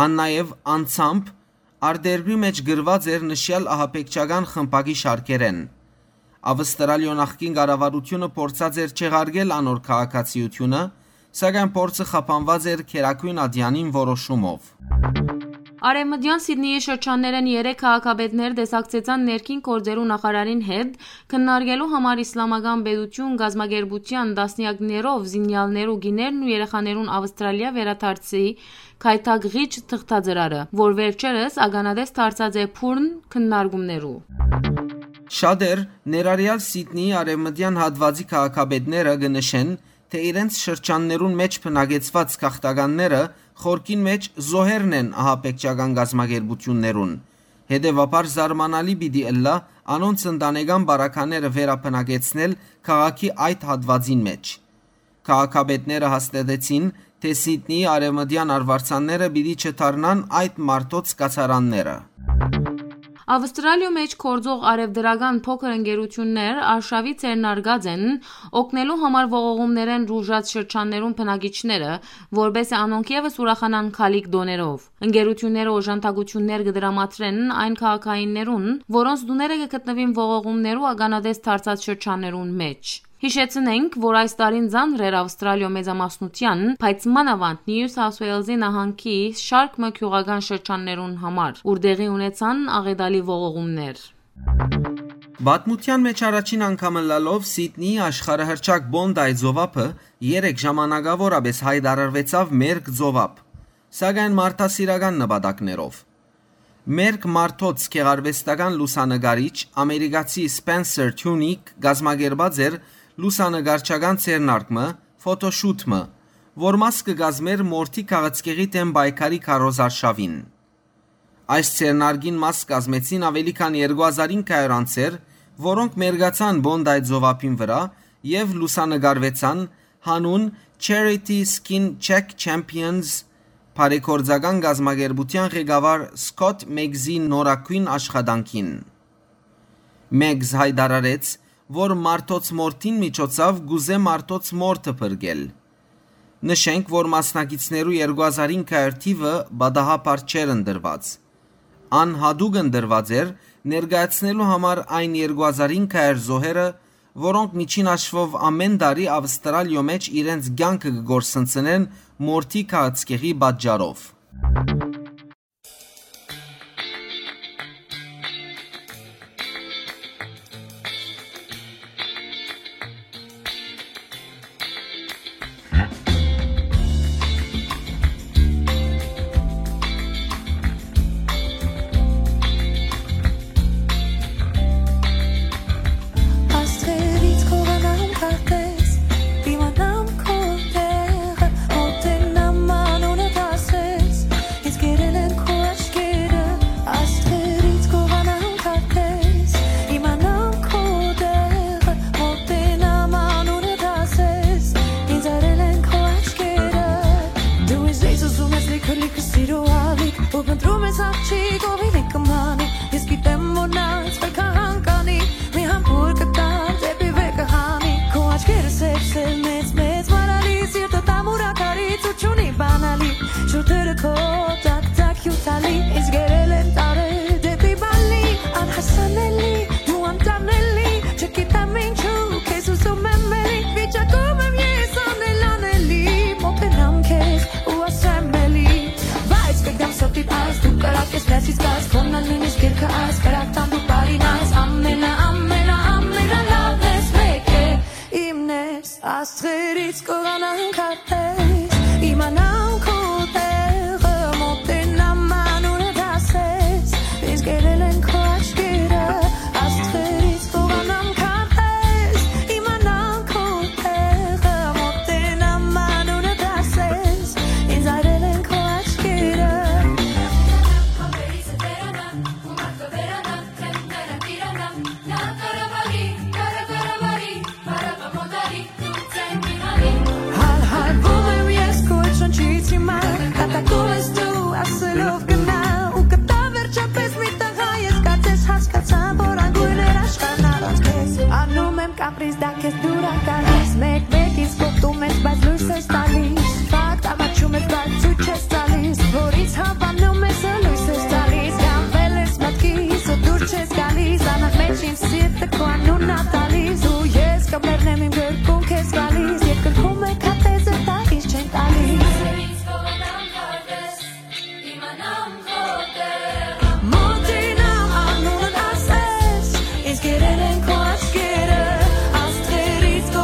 Ան նաեւ անձամբ արտերկրի մէջ գրուած էր նշեալ ահաբեկչական խմբակի շարքերէն։ Ավստրալիոյ նախկին կառավարութիւնը փորձած էր չեղարկել անոր քաղաքացիութիւնը, սակայն փորձը խափանուած էր գերագոյն ատեանին որոշումով։ Արեւմտեան Սիդնիի շրջաններէն երեք քաղաքապետներ տեսակցեցան ներքին գործերու նախարարին հետ՝ քննարկելու համար Իսլամական պետութիւն կազմակերպութեան տասնեակներով զինեալներու կիներն ու երեխաներուն Ավստրալիա վերադարձի գայթակղիչ թղթածրարը, որ վերջերս ականատես դարձած է բուռն քննարկումներու։ Շատեր, ներառեալ Սիդնիի արեւմտեան հատուածի քաղաքապետները, կը նշեն, թէ իրենց շրջաններուն մէջ բնակեցուած գաղթականները խորքին մէջ զոհերն են ահաբեկչական կազմակերպութիւններուն։ Հետեւաբար զարմանալի պիտի ըլլայ անոնց ընտանեկան բարագաները վերաբնակեցնել քաղաքի այդ հատուածին մէջ։ Քաղաքապետները հաստատեցին, թէ Սիդնիի արեւմտեան արուարձանները պիտի չդառնան այդ մարդոց կացարանները։ Ավստրալիոյ մէջ գործող արեւտրական փոքր ընկերութիւններ արշաւի ձեռնարկած են օգնելու համար ողողումներէն տուժած շրջաններուն բնակիչները, որպէս զի անոնք եւս ուրախանան քալիք տոներով։ Ընկերութիւնները օժանդակութիւններ կը տրամադրեն այն քաղաքայիններուն, որոնց տուները կը գտնուին ողողումներու ականատես դարձած շրջաններուն մէջ։ Յիշեցնենք, որ այս տարին ծանր էր Ավստրալիոյ մեծամասնութեան, բայց մանաւանդ Նիու Սաութ Ուէյլզի նահանգի շարք մը գիւղական շրջաններուն համար, ուր տեղի ունեցան աղետալի ողողումներ։ Պատմութեան մէջ առաջին անգամ ըլլալով Սիդնիի աշխարհահռչակ Պոնտայ ծովափը երեկ ժամանակաւորապէս յայտարարուեցաւ մերկ ծովափ, սակայն մարդասիրական նպատակներով։ Մերկ մարդոց գեղարուեստական լուսանկարիչ ամերիկացի Սպենսեր Թիունիք կազմակերպած էր լուսանկարչական ձեռնարկ մը, ֆոտոշութ մը, որ մաս կը կազմէր մորթի քաղցկեղի դէմ պայքարի քարոզարշաւին։ Այս ձեռնարկին մաս կազմեցին աւելի քան երկու հազար ինգ հարիւր անձեր, որոնք մերկացան Պոնտայ ծովափին վրայ եւ լուսանկարուեցան յանուն Charity Skin Check Champions բարեգործական կազմակերպութեան ղեկավար Սքոթ Մեգզի նորագոյն աշխատանքին։ Մեգզ յայտարարեց, որ մարդոց մորթին միջոցաւ կ'ուզէ մարդոց մորթը փրկել։ Նշենք, որ մասնակիցներու երկու հազար ինգ հարիւր թիւը պատահաբար չէր ընտրուած։ Ան յատուկ ընտրուած էր՝ ներկայացնելու համար այն երկու հազար ինգ հարիւր զոհերը, որոնք միջին հաշուով ամէն տարի Ավստրալիոյ մէջ իրենց կեանքը կը կորսնցնեն մորթի քաղցկեղի պատճառով։ Աստղերից կ'ուղանամ քարտեզ, դիմանամ քո տեղը, մոտենամ անունդ ասես, ինձ կերել են քո աչքերը, աստղերից կ'ուղանամ քարտեզ, իմանամ քո տեղը, մոտենամ անունդ ասես, ինձ արել են քո աչքերը։ Դու ինձ ես ուզում ես լիքը, լիքը սիրո ալիք, ու փնտրում ես աղջիկ, ով իլի կմանի, ես գիտեմ, որ նա ինձ վեր կհանկանի, մի համբույր կտար դեպի վեր կհանի, քո աչքերը սև, սև, մեծ, մեծ, մարալի, սիրտը տամուրակարի, ցուրտ չունի բանալի, շուրթերը քո տակ, տակ հիւթալի, ինձ գերել են տարեր դեպի բալի, անհասանելի, դու անտանելի, չգիտեմ ինչու, քեզ ուզում եմ էլի, վիճակում եմ ես անել անելի, մոտենամ քեզ ու ասեմ էլի, բայց կգամ սրտի փաս, դու կրակ ես, ներսից կաս, քոնն ալ նույնիսկ երկը աս, կրակ տան դու բարին աս, ամենա, ամենա, ամենա լավն ես, մեկ է, իմն ես, աստղերից կ'ուղանամ քարտեզ, իմանամ քո տեղը, մոտենամ անունդ ասես, ինձ գերել են քո աչքերը, աստղերից կ'ուղանամ քարտեզ, իմանամ քո տեղը, մոտենամ անունդ ասես, ինձ արել են քո աչքերը։ Հալհալվում եմ ես քո հետ շնչից հիմա, կատակում ես դու, ասելով գնա, ու կտա վերջապես մի տղա, ես կարծես հասկացա, որ անգույն էր աշխարհն առանց քեզ, անում եմ կապրիզ, դա քեզ դուր ա գալիս, մեկ-մեկ ինձ կողտում ես, բայց լույս ես տալիս, ֆակտ ամաչում ես, բայց ցույց ես տալիս, որ ինձ հավանում ես ու լույս ես տալիս, գանվել ես մտքիս ու դուր չես գալիս, անընդմեջ իմ սիրտը քո անունն ա տալիս, ու ես կմեռնեմ իմ գրկում քեզ գալիս, երկնքում է քարտեզը տալիս, չեն տալիս։ Մոտենամ անունդ ասես, ինձ կերել են քո աչքերը, աստղերից քո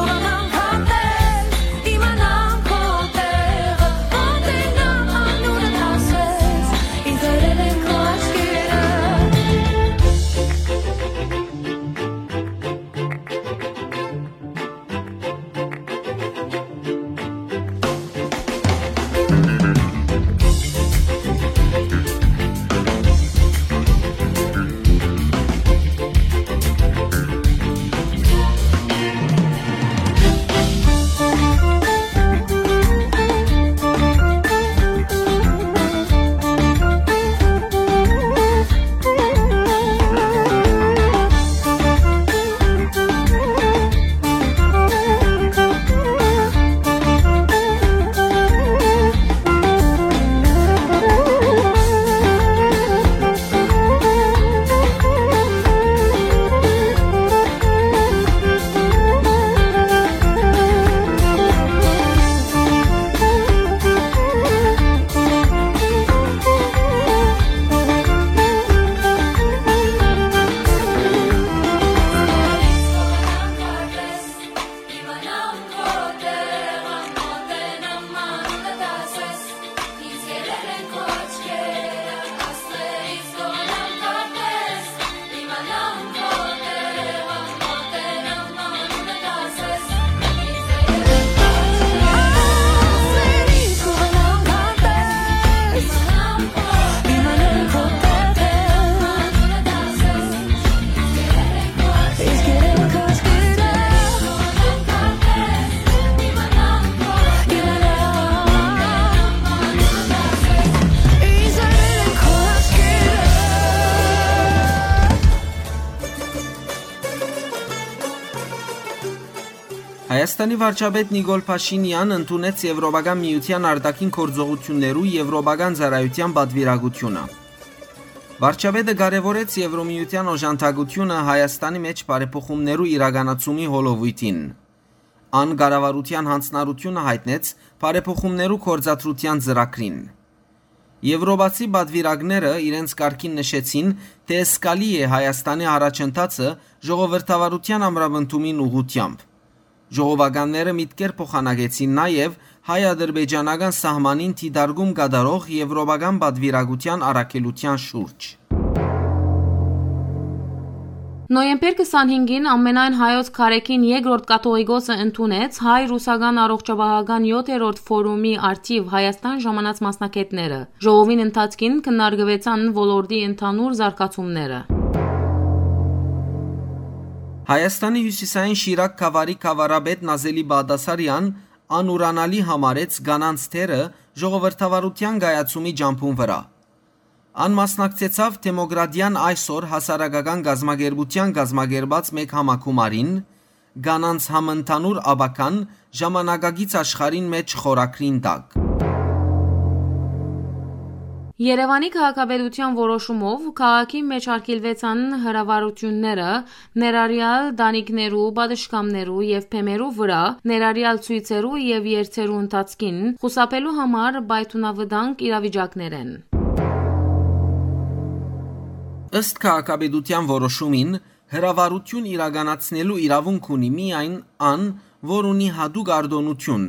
Հայաստանի վարչապետ Նիկոլ Փաշինեան ընդունեց Եվրոպական Միութեան արտաքին գործողութիւններու եվրոպական ծառայութեան պատուիրակութիւնը։ Վարչապետը կարեւորեց Եվրոմիութեան օժանդակութիւնը Հայաստանի մէջ բարեփոխումներու իրականացումի հոլովոյթին։ Ան կառավարութեան յանձնառութիւնը յայտնեց բարեփոխումներու գործադրութեան ծրագրին։ Եվրոպացի պատուիրակները իրենց կարգին նշեցին, թէ զգալի է Հայաստանի առաջընթացը ժողովրդավարութեան ամրապնդումին ուղղութեամբ։ Ժողովականները միտքեր փոխանակեցին նաեւ հայ-ադրբեջանական սահմանին դիտարկում կատարող եվրոպական պատուիրակութեան առաքելութեան շուրջ։ Նոյեմբեր քսանհինգին ամենայն հայոց քարեքին երկրորդ կաթողիկոսը ընդունեց հայ-ռուսական առողջապահական յոթերորդ ֆորումի առթիվ Հայաստան ժամանած մասնագետները։ Ժողովին ընթացքին քննարկուեցան ոլորտի ընդհանուր զարգացումները։ Հայաստանի հիւսիսային Շիրակ գաւառի գաւառապետ Նազելի Բաղդասարեան անուրանալի համարեց կանանց դերը ժողովրդավարութեան կայացումի ճամբուն վրայ։ Ան մասնակցեցաւ Դեմոկրատիան այսօր հասարակական կազմակերպութեան կազմակերպած մէկ համագումարին, «Կանանց համընդհանուր ապագան ժամանակակից աշխարհին մէջ» խորագրին տակ։ Երեւանի քաղաքապետութեան որոշումով քաղաքի մէջ արգիլուեցան հրավառությունները, ներառյալ տանիքներու, պատշգամներու եւ բեմերու վրայ, ներառյալ ցոյցերու եւ երթերու ընթացքին, խուսափելու համար պայթունավտանգ իրավիճակներէն։ Ըստ քաղաքապետութեան որոշումին, հրավառութիւն իրականացնելու իրաւունք ունի միայն ան, որ ունի յատուկ արտօնութիւն,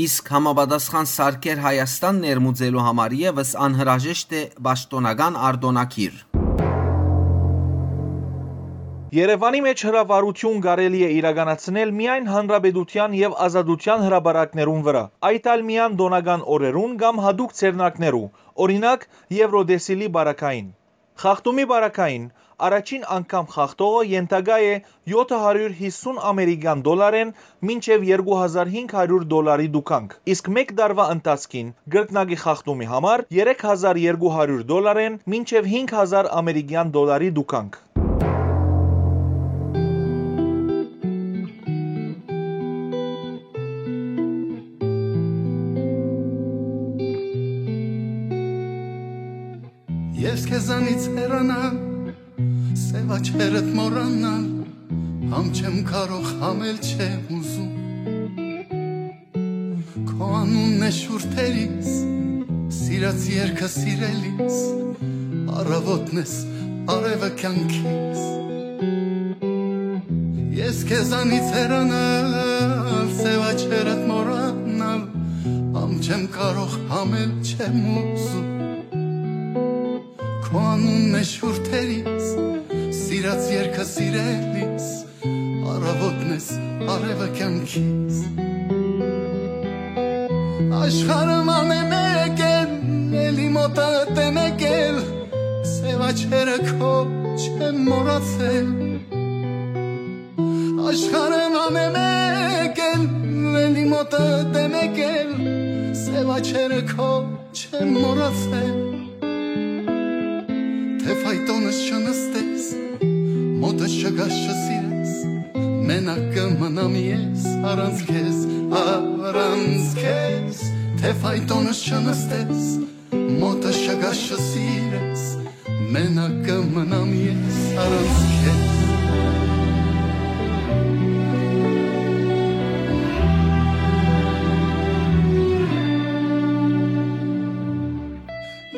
իսկ համապատասխան սարքեր Հայաստան ներմուծելու համար եւս անհրաժեշտ է պաշտօնական արտօնագիր։ Երեւանի մէջ հրավառութիւն կարելի է իրականացնել միայն Հանրապետութեան եւ Ազատութեան հրապարակներուն վրայ, այդ ալ միայն տօնական օրերուն կամ յատուկ ձեռնարկներու, օրինակ, Եվրոտեսիլի պարագային։ Խախտումի պարագային, առաջին անգամ խախտողը ենթակայ է յոթը հարիւր յիսուն ամերիկեան դոլարէն մինչեւ երկու հազար հինգ հարիւր դոլարի տուգանք, իսկ մէկ տարուայ ընթացքին կրկնակի խախտումի համար երեք հազար երկու հարիւր դոլարէն մինչեւ հինգ հազար ամերիկեան դոլարի տուգանք։ Ես քեզանից հեռանալ, սեւ աչքերդ մոռանալ, համ չեմ կարող, համ էլ չեմ ուզում։ Քո անունն է շուրթերիս, սիրած երկը սիրելիս, առավոտն ես, արևը կյանքիս։ Ես քեզանից հեռանալ, սեւ աչքերդ մոռանալ, համ չեմ կարող, համ էլ չեմ ուզում։ Քո անունն է շուրթերիս, սիրած երկը սիրելիս, առավոտն ես, արևը կյանքիս։ Աշխարհը ման է մեկ էլ, էլի մոտդ է մեկ էլ, սեւ աչքերը քո չեմ մոռացել։ Աշխարհը ման է մեկ էլ, էլի մոտդ է մեկ էլ, սեւ աչքերը քո չեմ մոռացել։ Թե ֆայտոնս չնստես, մոտս չգաս, չսիրես, մենակ կը մնամ ես առանց քեզ, առանց քեզ։ Թե ֆայտոնս չնստես, մոտս չգաս, չսիրես, մենակ կը մնամ ես առանց քեզ։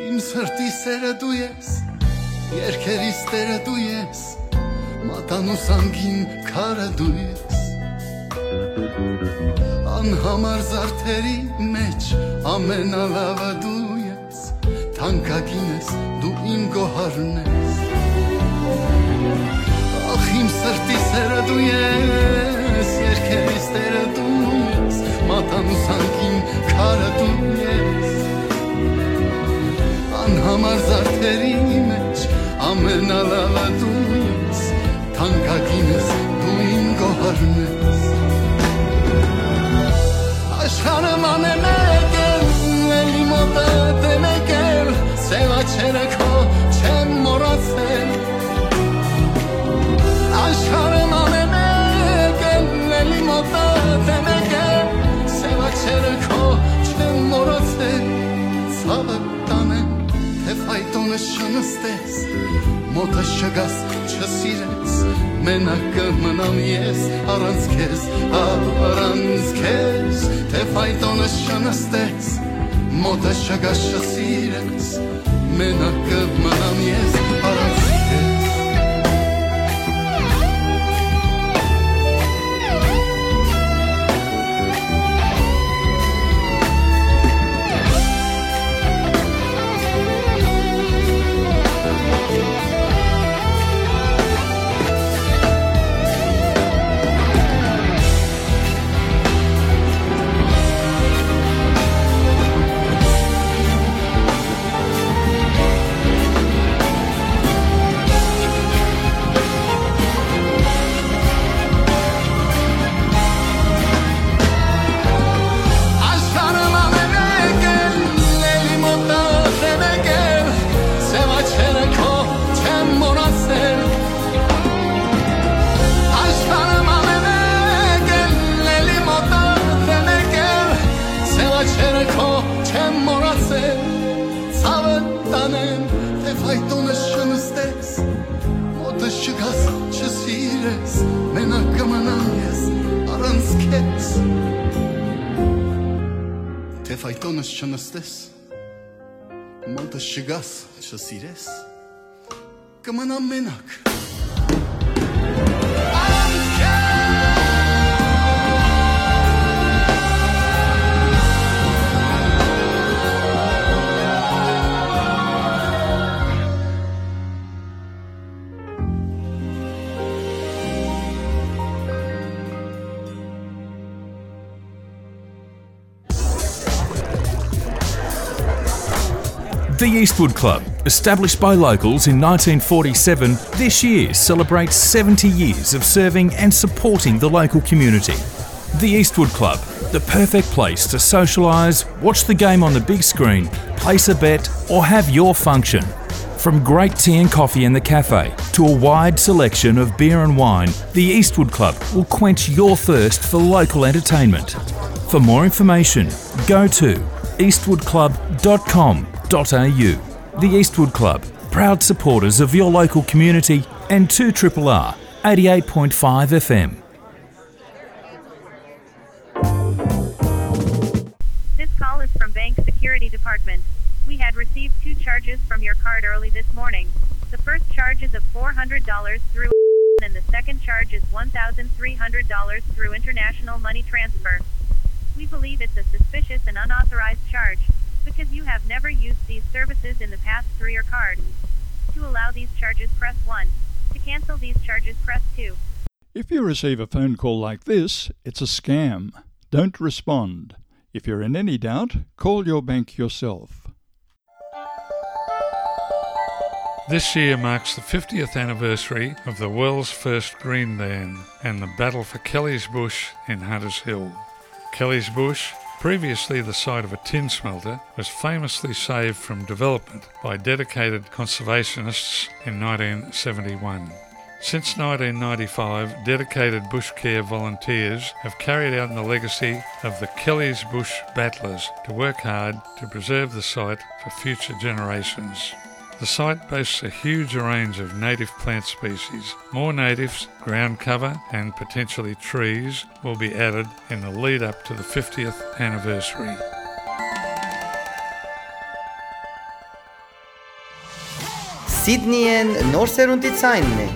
Իմ սրտի սերը դու ես, երկերիս տերը դու ես, մատանու սանքին քարը դու ես։ Անհամար զարդերի մեջ ամենալավը դու ես, թանկագին ես, դու իմ գոհարն ես։ Ախ, իմ սրտի սերը դու ես, երկերիս տերը դու ես, մատանու սանքին քարը դու ես։ Անհամար զարդերի մեջ ամենալավը դու ես, թանկագին ես, դու իմ գոհարն ես։ Աշխարհը ման է մեկ էլ, էլի մոտդ է մեկ էլ, սեւ աչքերը քո չեմ մոռացել։ Աշխարհը ման է մեկ էլ, էլի մոտդ Մոտս չգաս, չսիրես, մենակ կը մնամ ես առանց քեզ, առանց քեզ, թէ ֆայտոնս չնստես։ Մոտս չգաս, չսիրես, մենակ կը մնամ ես առանց քեզ։ Աշխարհը մամերեկ էլ, էլի մոտը դեմեկ էլ, սեւ աչքերը քո չեմ մոռացել։ Աշխարհը մամերեկ էլ, էլի մոտը դեմեկ էլ, սեւ աչքերը քո չեմ մոռացել։ Ցաւը տանեմ, թէ ֆայտոնս չնստես, մոտս չգաս, չսիրես, մենակ կը մնամ ես առանց քեզ։ Թէ ֆայտոնս չնստես, մոտս չգաս, չսիրես, կը մնամ մենակ։ The Eastwood Club, established by locals in nineteen forty-seven, this year celebrates seventy years of serving and supporting the local community. The Eastwood Club, the perfect place to socialise, watch the game on the big screen, place a bet, or have your function. From great tea and coffee in the cafe to a wide selection of beer and wine, the Eastwood Club will quench your thirst for local entertainment. For more information, go to eastwood club dot com dot a u. The Eastwood Club, proud supporters of your local community and two triple R, eighty-eight point five F M. This call is from Bank Security Department. We had received two charges from your card early this morning. The first charge is of four hundred dollars through and the second charge is one thousand three hundred dollars through international money transfer. We believe it's a suspicious and unauthorized charge because you have never used these services in the past through your card. To allow these charges, press one. To cancel these charges, press two. If you receive a phone call like this, it's a scam. Don't respond. If you're in any doubt, call your bank yourself. This year marks the fiftieth anniversary of the world's first green dan and the battle for Kelly's Bush in Hunters Hill. Kelly's Bush, previously the site of a tin smelter, was famously saved from development by dedicated conservationists in nineteen seventy-one. Since nineteen ninety-five, dedicated bush care volunteers have carried out the legacy of the Kelly's Bush Battlers to work hard to preserve the site for future generations. The site boasts a huge range of native plant species. More natives, ground cover, and potentially trees will be added in the lead up to the fiftieth anniversary. Սիդնիեն նոր սերունդի ցայնն է։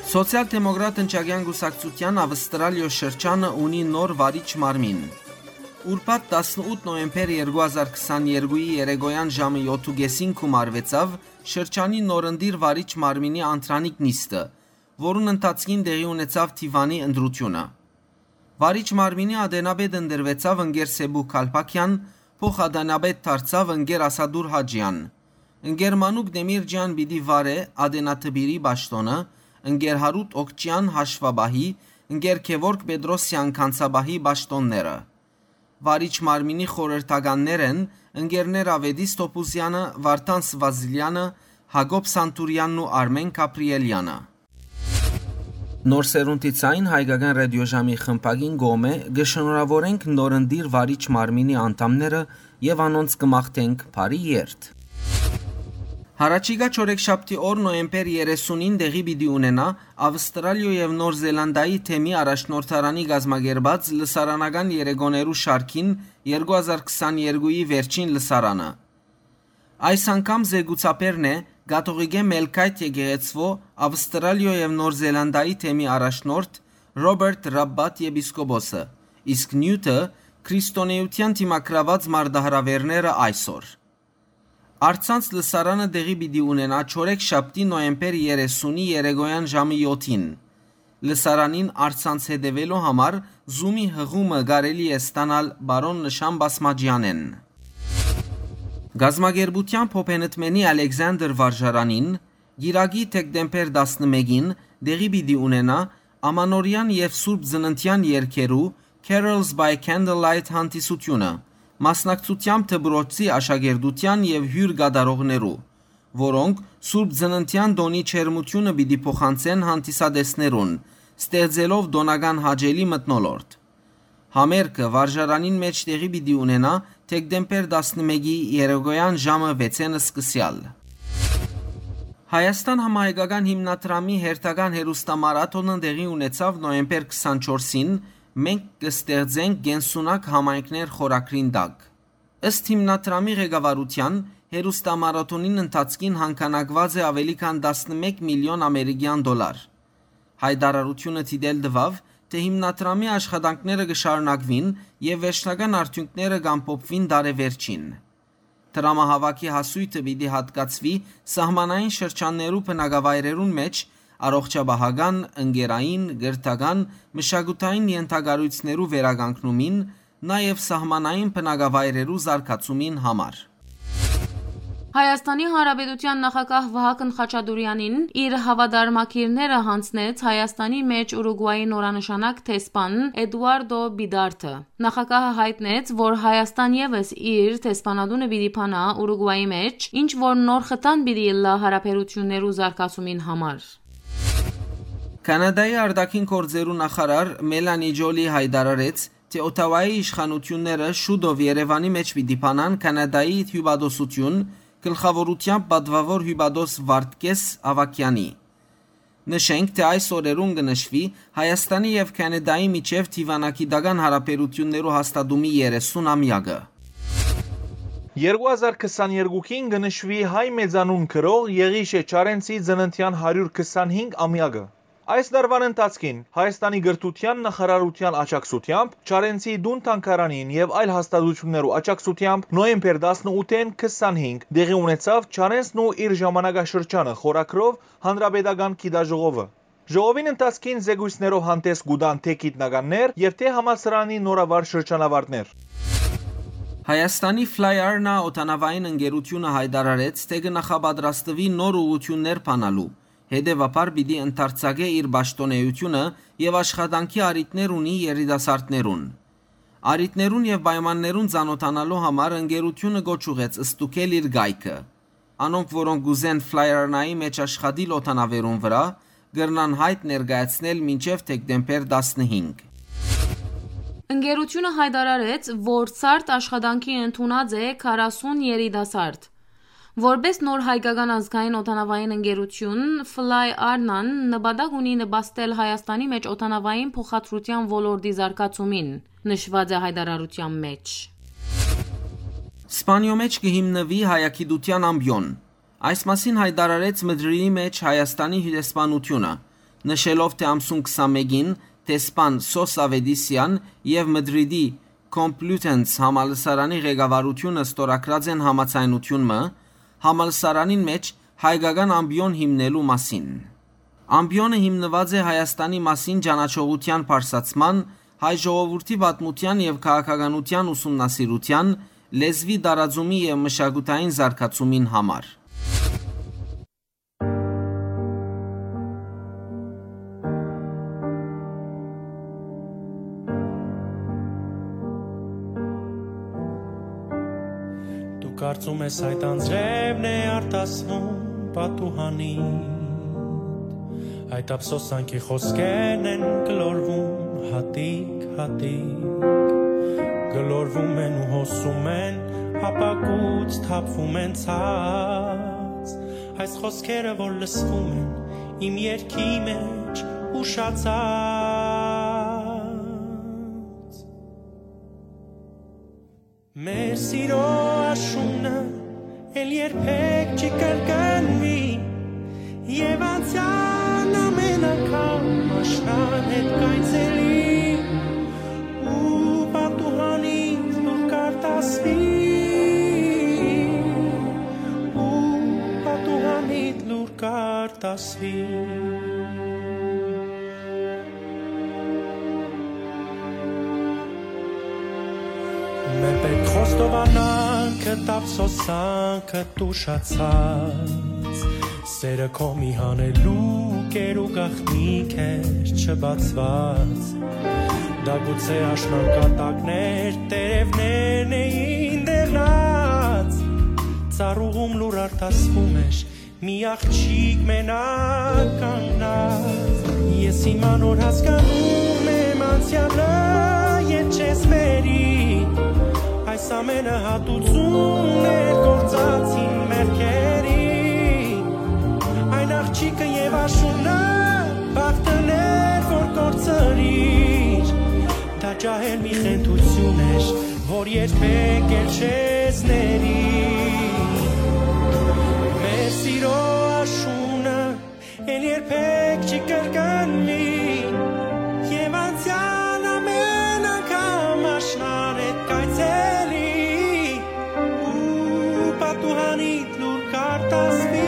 Սոցիալ-դեմոկրատ ընչակեան կուսակցութեան Ավստրալիոյ շրջանը ունի նոր վարիչ մարմին։ Ուրբաթ տասնութ նոյեմբեր երկու հազար քսաներկուի երեկոյան ժամը յոթ ու կեսին գումարուեցաւ շրջանի նորընտիր վարիչ մարմինի անդրանիկ նիստը, որուն ընթացքին տեղի ունեցաւ դիվանի ընտրութիւնը։ Վարիչ մարմինի ատենապետ ընտրուեցաւ ընկեր Սեբու Քալփաքեան, փոխ-ատենապետ դարձաւ ընկեր Ասատուր Հաճեան։ Ընկեր Մանուկ Դեմիրճեան պիտի վարէ ատենատպիրի պաշտօնը, ընկեր Հարութ Օքճեան՝ հաշուապահի, ընկեր Գեորգ Պետրոսեան՝ գանձապահի պաշտօնները։ Վարիչ մարմինի խորհրդականներ են ընկերներ Ավետիս Թոփուզեանը, Վարդան Սվազիլեանը, Յակոբ Սանտուրեանն ու Արմեն Գաբրիելեանը։ Նոր սերունդի ձայն հայկական ռադիոժամի խմբակին կողմէ կը շնորհավորենք նորընտիր վարիչ մարմինի անդամները եւ անոնց կը մաղթենք բարի երթ։ Յառաջիկայ չորեքշաբթի օր նոյեմբեր երեսունին տեղի պիտի ունենայ Ավստրալիոյ եւ Նոր Զելանդիայի թեմի առաջնորդարանի կազմակերպած լսարանական երեկոներու շարքին երկու հազար քսաներկուի վերջին լսարանը։ Այս անգամ զեկուցաբերն է կաթողիկէ Մելքայթ եկեղեցւոյ Ավստրալիոյ եւ Նոր Զելանդիայի թեմի առաջնորդ Ռոբերտ Ռաբբատ եպիսկոպոսը, իսկ նիւթը՝ քրիստոնէութեան դիմագրաւած մարտահրաւէրները այսօր։ Առցանց լսարանը տեղի պիտի ունենայ չորեքշաբթի նոյեմբեր երեսունի երեկոյան ժամը յոթին։ Լսարանին առցանց հետեւելու համար Zoom-ի հղումը կարելի է ստանալ պարոն Նշան Բասմաճեանէն։ Կազմակերպութեան Փոփենտմենի Ալեքսանդր վարժարանին Կիրակի դեկտեմբեր տասնմէկին տեղի պիտի ունենայ Ամանորեան եւ Սուրբ Ծննդեան երգերու Carols by Candlelight հանդիսութիւնը, մասնակցութեամբ դպրոցի աշակերտութեան եւ հիւր կատարողներու, որոնք Սուրբ Ծննդեան տօնի ջերմութիւնը պիտի փոխանցեն հանդիսատեսներուն, ստեղծելով տօնական հաճելի մթնոլորտ։ Համերգը վարժարանին մէջ տեղի պիտի ունենայ դեկտեմբեր տասնմէկի երեկոյան ժամը վեցէն սկսեալ։ Հայաստան համահայկական հիմնադրամի հերթական հերոստամարաթոնը տեղի ունեցաւ նոյեմբեր քսանչորսին «Մենք կը ստեղծենք կենսունակ համայնքներ» խորագրին տակ։ Ըստ հիմնադրամի ղեկավարութեան, հերոստամարաթոնին ընթացքին հանգանակուած է աւելի քան տասնմէկ միլիոն ամերիկեան դոլար։ Հայտարարութիւնը դիտել տուաւ, թէ հիմնադրամի աշխատանքները կը շարունակուին եւ վերջնական արդիւնքները կ'ամփոփուին տարեվերջին։ Դրամահաւաքի հասոյթը պիտի յատկացուի սահմանային շրջաններու բնակավայրերուն մէջ առողջապահական, ընկերային, կրթական, մշակութային ենթակառոյցներու վերականգնումին, նաեւ սահմանային բնակավայրերու զարգացումին համար։ Հայաստանի Հանրապետութեան նախագահ Վահագն Խաչատուրեանին իր հաւատարմագիրները յանձնեց Հայաստանի մէջ Ուրուգուայի նորանշանակ դեսպան Էդուարդո Պիտարդը։ Նախագահը յայտնեց, որ Հայաստան եւս իր դեսպանատունը պիտի բանայ Ուրուգուայի մէջ, ինչ որ նոր խթան պիտի ըլլայ յարաբերութիւններու զարգացումին համար։ Քանադայի արտաքին գործերու նախարար Մելանի Ջոլի յայտարարեց, թէ Օթաուայի իշխանութիւնները շուտով Երեւանի մէջ պիտի բանան Քանադայի հիւպատոսութիւն, գլխաւորութեամբ պատուաւոր հիւպատոս Վարդգէս Աւագեանի։ Նշենք, թէ այս օրերուն կը նշուի Հայաստանի եւ Քանադայի միջեւ դիւանագիտական յարաբերութիւններու հաստատումի երեսուն ամեակը։ Երկու հազար քսաներկուին կը նշուի հայ մեծանուն գրող Եղիշէ Չարենցի ծննդեան հարիւր քսանհինգ ամեակը։ Այս տարուան ընթացքին Հայաստանի կրթութեան նախարարութեան աջակցութեամբ Չարենցի տուն թանգարանին եւ այլ հաստատութիւններու աջակցութեամբ նոյեմբեր տասնութին քսանհինգ տեղի ունեցաւ «Չարենցն ու իր ժամանակաշրջանը» խորագրով հանրապետական գիտաժողովը։ Ժողովին ընթացքին զեկոյցներով հանդէս կու տան թէ գիտնականներ եւ թէ համալսարանի նորավար շրջանավարտներ։ Հայաստանի Fly Arna օդանաւային ընկերութիւնը յայտարարեց, թէ կը նախապատրաստուի նոր ուղղութիւններ բանալու, հետեւաբար պիտի ընդարձակէ իր պաշտօնէութիւնը եւ աշխատանքի առիթներ ունի երիտասարդներուն։ Առիթներուն եւ պայմաններուն ծանօթանալու համար ընկերութիւնը կոչ ուղղեց ստուգել իր կայքը։ Անոնք, որոնք կ'ուզեն Fly Arna-ի մէջ աշխատիլ օդանաւերուն վրայ, կրնան յայտ ներկայացնել մինչեւ դեկտեմբեր տասնհինգ։ Ընկերութիւնը յայտարարեց, որ ցարդ աշխատանքի ընդունած է քառասուն երիտասարդ։ Որպէս նոր հայկական ազգային օդանաւային ընկերութիւն, Fly Arna-ն նպատակ ունի նպաստել Հայաստանի մէջ օդանաւային փոխադրութեան ոլորտի զարգացումին, նշուած է յայտարարութեան մէջ։ Սպանիոյ մէջ կը հիմնուի հայագիտութեան ամպիոն։ Այս մասին յայտարարեց Մդրիդի մէջ Հայաստանի հիւրեսպանութիւնը։ Նշելով, թէ ամսուն քսանմէկին դեսպան Սոս Ավետիսեան եւ Մդրիդի Կոմպլիութենս համալսարանի ղեկավարութիւնը ստորագրած են համաձայնութիւն մը համալսարանին մէջ հայկական ամպիոն հիմնելու մասին։ Ամպիոնը հիմնուած է Հայաստանի մասին ճանաչողութեան բարձրացման, հայ ժողովուրդի պատմութեան եւ քաղաքականութեան ուսումնասիրութեան, լեզուի տարածումի եւ մշակութային զարգացումին համար։ Դու կարծում ես, այդ անձրեւն է արտասվում պատուհանիդ, այդ ափսոսանքի խօսքերն են գլորվում հատիկ-հատիկ, գլորվում են ու հոսում են, ապակուց թափվում են ցած։ Այս խօսքերը, որ լսվում են իմ երգի մեջ ուշացած։ Մեր սիրո աշունը էլ երբեք չի կրկնվի, եւ անցեան ամեն անգամ աշնան հետ կայցելի, ու պատուհանիդ լուր կարտասվի, ու պատուհանիդ լուր կարտասվի։ Մէ պէտք խոստովանանք, ափսոսանքը, տուշացած, սերը քո մի հանելուկ էր ու գաղտնիք էր չբացված։ Դա գուցե աշնան կատակներ, տերևներն էին դեղնած, ծառուղում լուր արտասվում էր, մի աղջիկ մենակ կանգնած։ Ես հիմա նոր հասկանում եմ անցյալը, երբ չես մերի, այս ամենը հատուցում էր գործածին մեղքերի։ Այն աղջիկը եւ աշունը բախտն էր, որ կորցրիր, դա ջահել մի խենթություն էր, որ երբեք էլ չես ների։ Մեր սիրո աշունը էլ երբեք չի կրկնվի, եւ անցեան ամեն անգամ աշնան հետ կայցելի, ու պատուհանիդ լուր կարտասվի,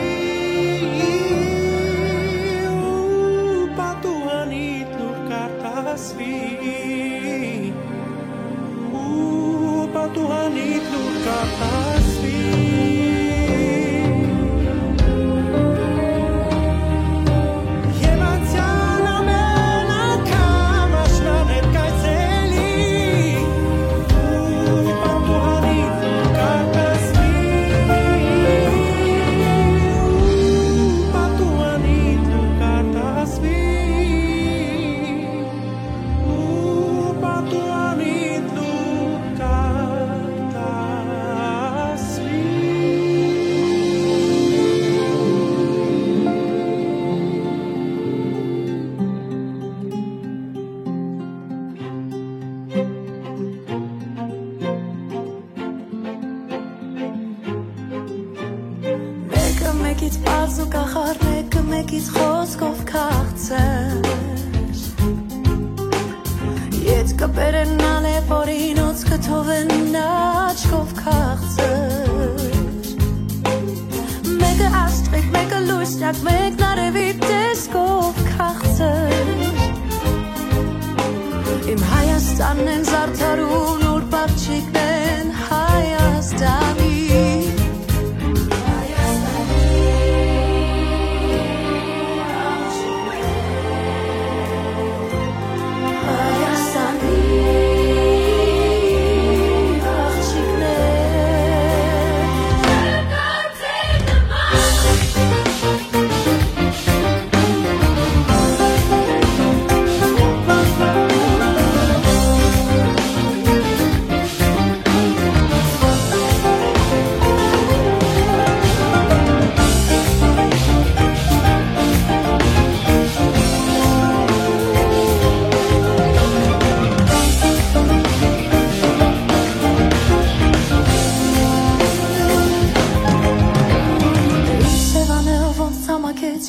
ու պատուհանիդ լուր կարտասվի, ու պատուհանիդ լուր կարտասվի։ Եւ անցեան ամեն անգամ աշնան հետ կայցելի, ու պատուհանիդ լուր կարտասվի, ու պատուհանիդ լուր կարտասվի, ու պատուհանիդ լուր կարտասվի։ Մէկը մէկից պարզ ու կախարդ, մէկը մէկից խօսքով քաղցր։ Ետքը բերենալ է, որ ինոց կը թողեն աչքով քաղցր։ Մէկը աստղիկ, մէկը լուսնակ, մէկն արեւի տեսքով քաղցր։ Իմ Հայաստանն են զարդարուն, ուրբ աղջիկն են Հայաստանի։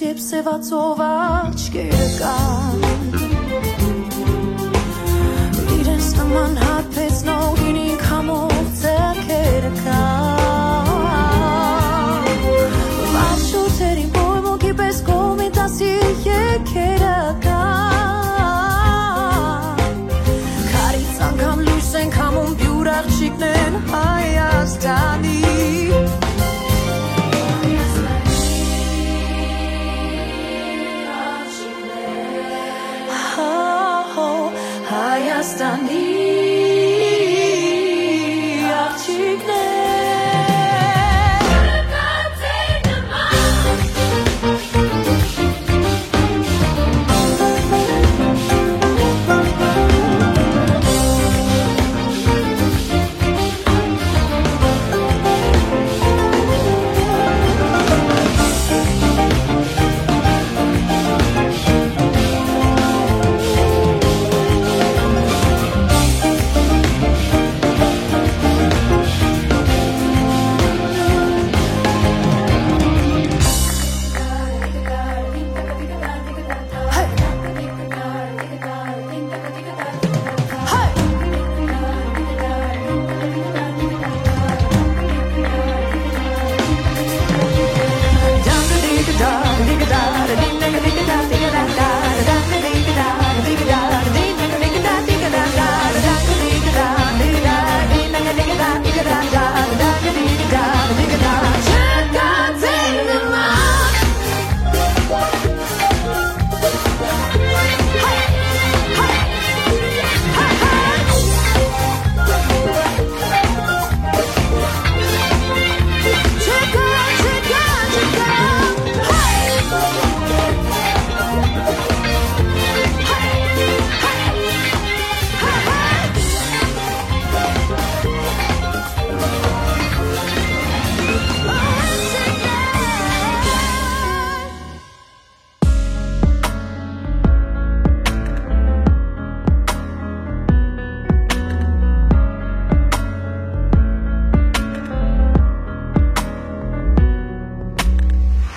Երբ սեւացող աչքերը կան, իրենց նման հարբեցնող գինին քամող ձեռքերը կան, վաղ շունչերին պոյմունքի պէս կոմիտասի եկերը կան, քարից անգամ լոյս են քամում, պիւր աղջիկներն Հայաստանի։ Հա, հո, Հայաստանի աղջիկներ։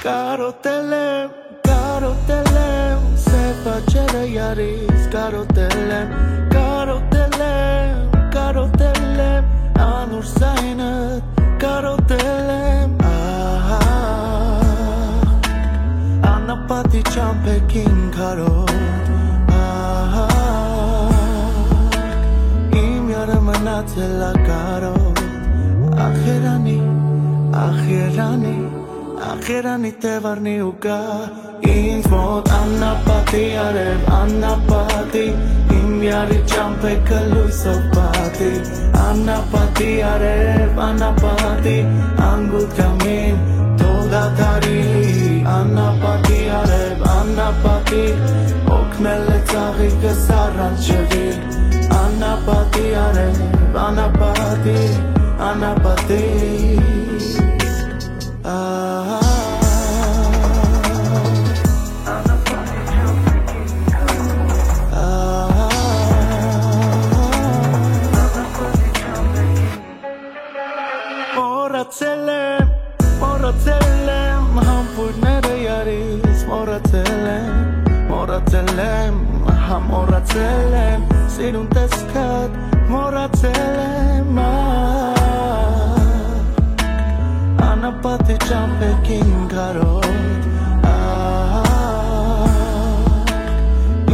Կարոտել եմ, կարոտել եմ, սեփ աճերը յարից կարոտել եմ, կարոտել եմ, կարոտել եմ, անոր զայնը կարոտել եմ, ահա, անապատի ճամփեքին քարոտ, ահա, իմ յարը մնացել ա կարոտ, ախ երանի, ախ երանի, ախ երանի թեւարնի ու գա, ինձ մոտ անապատի արեւ, անապատի, իմ յարի ճամփեքը լոյսով պատի, անապատի արեւ, անապատի, անգութ կամին, թող դադարի, անապատի արեւ, անապատի, օգնել է ծաղիկս առանջվի, անապատի արեւ, անապատի, անապատի, ահա, ահա, մոռացել եմ, մոռացել եմ, համբույրները յարից մոռացել եմ, մոռացել եմ, հա, մոռացել եմ, սիրուն տեսքդ մոռացել եմ, ա, անապատի ճամփեքին քարոտ, ա,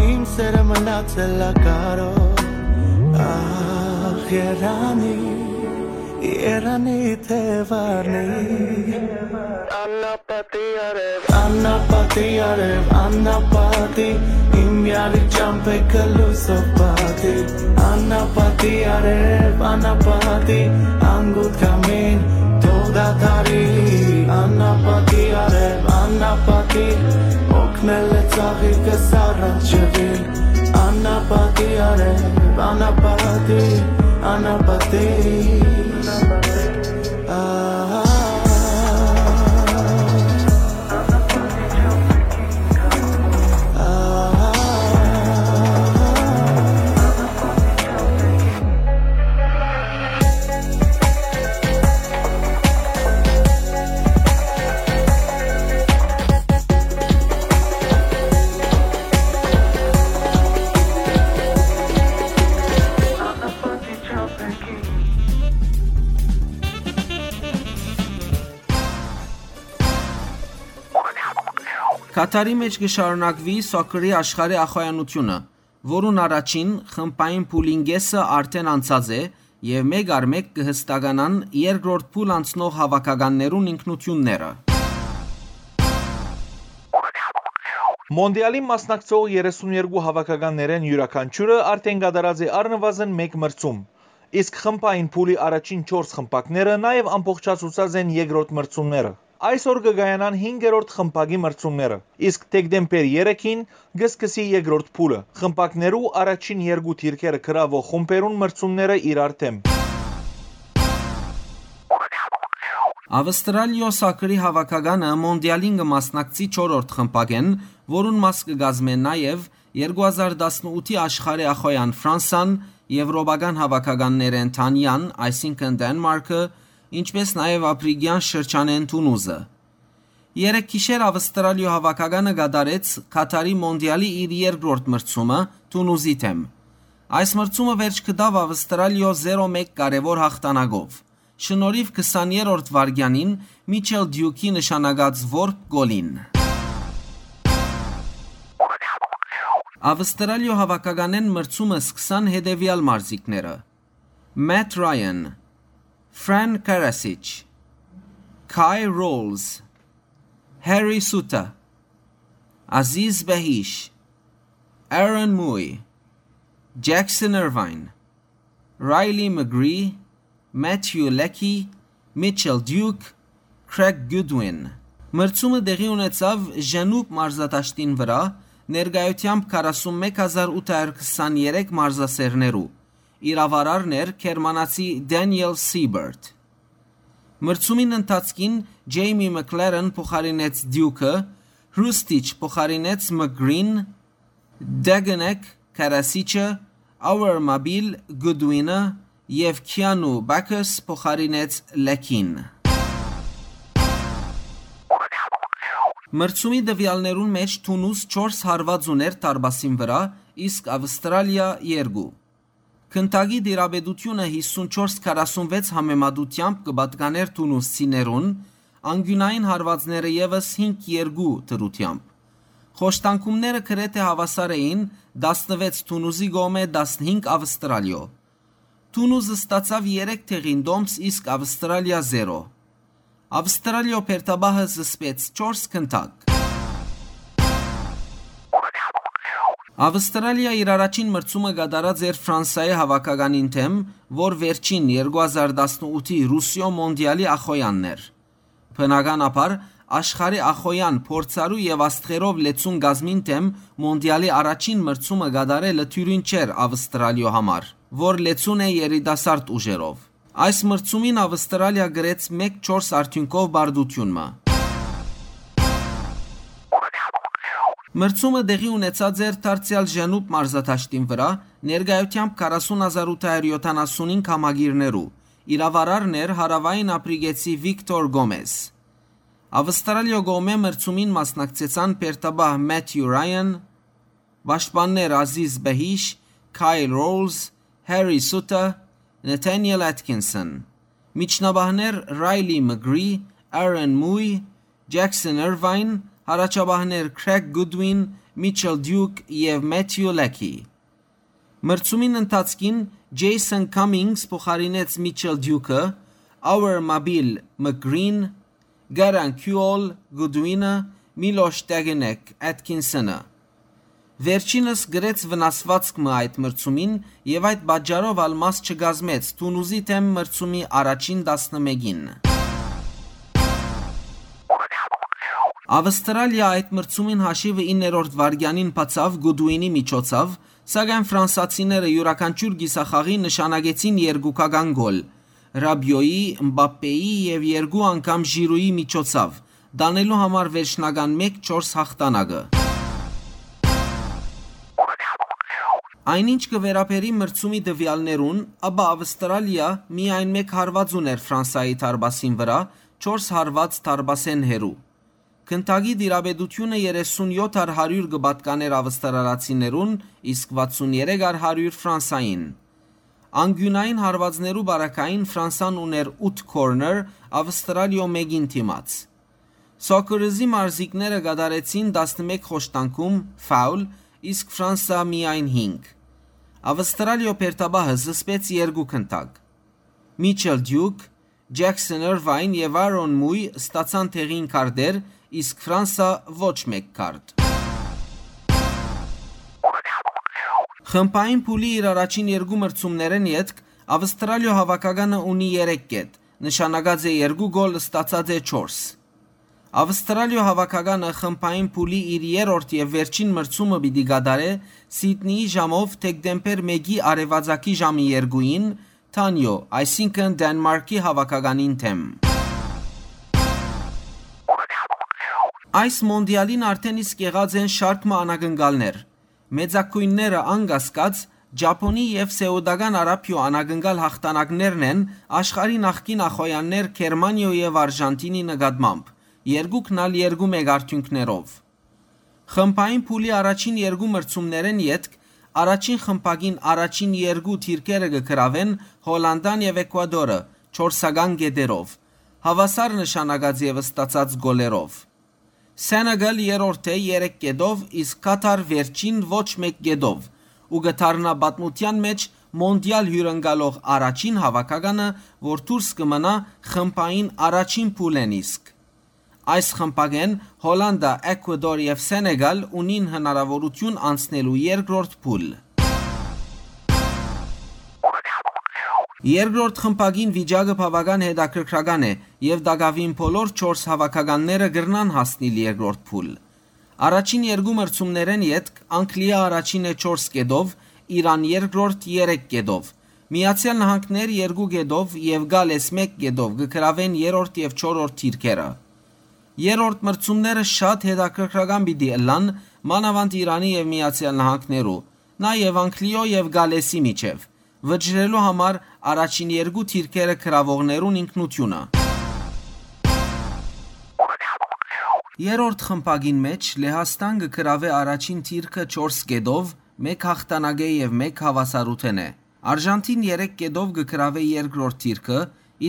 իմ սերը մնացել ա կարոտ, ախ, երանի, երանի թեւարնի, անապատի արեւ, անապատի արեւ, անապատի, իմ յարի ճամփեքը լոյսով պատի, անապատի արեւ, անապատի, անգութ կամին, թող դադարի, անապատի արեւ, անապատի, օգնել է ծաղիկս առանջվի, անապատի արեւ, անապատի, անապատի, ահա, ահա, Քաթարի մէջ կը շարունակուի սոքերի աշխարհի ախոյանութիւնը, որուն առաջին խմբային փուլին կէսը արդէն անցած է եւ մէկ առ մէկ կը հստականան երկրորդ փուլ անցնող հաւաքականներուն ինքնութիւնները։ Մոնտիալին մասնակցող երեսուն երկու հաւաքականներէն յուրաքանչիւրը արդէն կատարած է առնուազն մէկ մրցում, իսկ խմբային փուլի առաջին չորս խմբակները նաեւ ամբողջացուցած են երկրորդ մրցումները։ Այսօր կը կայանան հինգերորդ խմբակի մրցումները, իսկ դեկտեմբեր երեքին կը սկսի երկրորդ փուլը։ Խմբակներու առաջին երկու դիրքերը գրաւող խումբերուն մրցումները իրար դէմ։ Ավստրալիոյ սոքերի հաւաքականը Մոնտիալին կը մասնակցի չորրորդ խմբակէն, որուն մաս կը կազմեն նաեւ երկու հազար տասնութի աշխարհի ախոյեան Ֆրանսան, եւրոպական հաւաքականներէն Դանիան, այսինքն Դենմարքը, ինչպէս նաեւ Ափրիկեան շրջանէն Թունուզը։ Երեկ գիշեր Ավստրալիոյ հաւաքականը կատարեց Քաթարի Մոնտիալի իր երկրորդ մրցումը Թունուզի դէմ։ Այս մրցումը վերջ գտաւ Ավստրալիոյ զերո մէկ կարեւոր յաղթանակով, շնորհիւ քսաներորդ վայրկեանին Միչել Դիուքի նշանակած որբ գոլին։ Ավստրալիոյ հաւաքականէն մրցումը սկսան հետեւեալ մարզիկները. Մեթ Ռայան, Ֆրան Կարասիչ, Քայ Ռոլզ, Հարի Սուտա, Ազիզ Բեհիշ, Արոն Մուի, Ջեքսոն Իրվայն, Ռայլի Մգրի, Մեթյու Լեքի, Միչել Դիուք, Քրեգ Գուդուին։ Մրցումը տեղի ունեցաւ Ժենուբ մարզադաշտին վրայ, ներկայութեամբ քառասունմեկ հազար ութ հարյուր քսաներեք մարզասէրներու։ Իրաւարարն էր գերմանացի Դենիել Սիբերտ։ Մրցումին ընթացքին Ջեյմի Մքլերեն փոխարինեց Դիուքը, Հրուստիչ փոխարինեց Մգրին, Դեգնեկ Քարասիչը, Աուեր Մաբիլ Գուդուինը եւ Քիանու Բաքս փոխարինեց Լեքին։ Մրցումի տուեալներուն մէջ Թունուզ չորս հարուած ունէր դարպասին վրայ, իսկ Ավստրալիա՝ երկու։ Գնդակի տիրապետութիւնը հիսուն չորս քառասունվեց համեմատութեամբ կը պատկանէր թունուսցիներուն, անկիւնային հարուածները եւս հինգ երկու դրութեամբ։ Խոշտանգումները գրեթէ հաւասար էին, տասնվեց Թունուզի կողմէ, տասնհինգ Ավստրալիոյ։ Թունուզ ստացաւ երեք դեղին տոմս, իսկ Ավստրալիա՝ զերո։ Ավստրալիոյ բերդապահը զսպեց չորս գնդակ։ Ավստրալիա իր առաջին մրցումը կատարած էր Ֆրանսայի հաւաքականին դէմ, որ վերջին երկու հազար տասնութի Ռուսիոյ մոնտիալի ախոյանն էր։ Բնականաբար, աշխարհի ախոյան փորձառու եւ աստղերով լեցուն կազմին դէմ մոնտիալի առաջին մրցումը կատարելը թիւրին չէր Ավստրալիոյ համար, որ լեցուն է երիտասարդ ուժերով։ Այս մրցումին Ավստրալիա գրեց մէկ չորս արդիւնքով պարտութիւն մը։ Մրցումը տեղի ունեցած էր դարձեալ Ժենուբ մարզադաշտին վրայ, ներկայութեամբ քառասուն հազար ութ հարյուր յոթանասունհինգ համակիրներու։ Իրաւարարն էր հարաւային ափրիկեցի Վիկտոր Գոմեզ։ Ավստրալիոյ կողմէ մրցումին մասնակցեցան բերդապահ Մեթյու Ռայան, պաշտպաններ Ազիզ Բեհիշ, Քայլ Ռոլզ, Հարի Սուտա, Նեթանիել Ատքինսոն, միջնաբահներ Ռայլի Մգրի, Արոն Մուի, Ջեքսոն Իրվայն, յառաջաբահներ Քրեգ Գուդուին, Միչել Դիուք եւ Մեթյու Լեքի։ Մրցումին ընթացքին Ջեյսոն Քամինգս փոխարինեց Միչել Դիուքը, Աուեր Մաբիլ Մգրին, Գարան Քյուոլ Գուդուինը, Միլոշ Տեգնեկ Ատքինսոնը։ Վերջինս գրեց վնասվածք մը այդ մրցումին եւ այդ պատճառով ալ մաս չկազմեց Թունուզի դէմ մրցումի առաջին տասնմէկին։ Ավստրալիա այդ մրցումին հաշիվը իններորդ վայրկեանին բացաւ Գուդուինի միջոցով, սակայն ֆրանսացիները իւրաքանչիւր կիսախաղի նշանակեցին երկուքական գոլ՝ Ռաբիոյի, Մբապպեի եւ երկու անգամ Ժիրուի միջոցով, տանելու համար վերջնական մէկ չորս յաղթանակը։ Այն ինչ կը վերաբերի մրցումի տուեալներուն, ապա Ավստրալիա միայն մէկ հարուած ունէր Ֆրանսայի դարպասին վրայ, չորս հարուած դարպասէն հեռու։ Գնդակի տիրապետութիւնը երեսուն յոթ առ հարիւր կը պատկանէր ավստրալացիներուն, իսկ վաթսուն երեք առ հարիւր Ֆրանսային։ Անկիւնային հարուածներու պարագային Ֆրանսան ունէր ութ քորներ Ավստրալիոյ մէկին դիմաց։ Սոկերզի մարզիկները կատարեցին տասնմէկ խոշտանգում, ֆաուլ, իսկ Ֆրանսա միայն հինգ։ Ավստրալիոյ բերդապահը զսպեց երկու գնդակ։ Միչել Դիուք, Ջեքսոն Իրվայն եւ Արոն Մուի ստացան տեղին քարտեր, իսկ Ֆրանսա ոչ մէկ քարտ։ Խմբային փուլի իր առաջին երկու մրցումներէն ետք Ավստրալիոյ հաւաքականը ունի երեք կետ, նշանակած է երկու գոլ, ստացած է չորս։ Ավստրալիոյ հաւաքականը խմբային փուլի իր երրորդ եւ վերջին մրցումը պիտի կատարէ Սիդնիի ժամով դեկտեմբեր մէկի արեւածագի ժամը երկուին Թանիոյ, այսինքն Դենմարկի հաւաքականին դէմ։ Այս մոնդիալին արդէն իսկ եղած են շարք մը անակնկալներ։ Մեծագոյնները անկասկած Ճապոնի եւ Սէուտական Արաբիոյ անակնկալ յաղթանակներն են աշխարհի նախկին ախոյաններ Գերմանիոյ եւ Արժանտինի նկատմամբ, երկուքն ալ երկու մէկ արդիւնքներով։ Խմբային փուլի առաջին երկու մրցումներէն ետք առաջին խմբակին առաջին երկու դիրքերը կը գրաւեն Հոլանդան եւ Էկուադորը չորսական կետերով, հաւասար նշանակած եւ ստացած գոլերով։ Սենեգալ երրորդ է երեք կետով, իսկ Կաթար վերջին ոչ մէկ կետով, ու կը դառնայ պատմութեան մէջ մոնդիալ հիւրընկալող առաջին հաւաքականը, որ դուրս կը մնայ խմբային առաջին փուլէն իսկ։ Այս խմբակէն Հոլանդա, Էկուադոր եւ Սենեգալ ունին հնարաւորութիւն անցնելու երկրորդ փուլ։ Երկրորդ խմբակին վիճակը բաւական հետաքրքրական է եւ տակաւին բոլոր չորս հաւաքականները կրնան հասնիլ երկրորդ փուլ։ Առաջին երկու մրցումներէն ետք Անգլիա առաջին է չորս կետով, Իրան երկրորդ երեք կետով, Միացեալ Նահանգներ երկու կետով եւ Գալէս մէկ կետով կը գրաւեն երրորդ եւ չորրորդ դիրքերը։ Երրորդ մրցումները շատ հետաքրքրական պիտի ըլլան, մանաւանդ Իրանի եւ Միացեալ Նահանգներու, նաեւ Անգլիոյ եւ Գալէսի միջեւ, վճռելու համար առաջին երկու դիրքերը գրաւողներուն ինքնութիւնը։ Երրորդ խմբակին մէջ Լեհաստան կը գրաւէ առաջին դիրքը չորս կետով, մէկ յաղթանակէ եւ մէկ հաւասարութենէ։ Արժանտին երեք կետով կը գրաւէ երկրորդ դիրքը,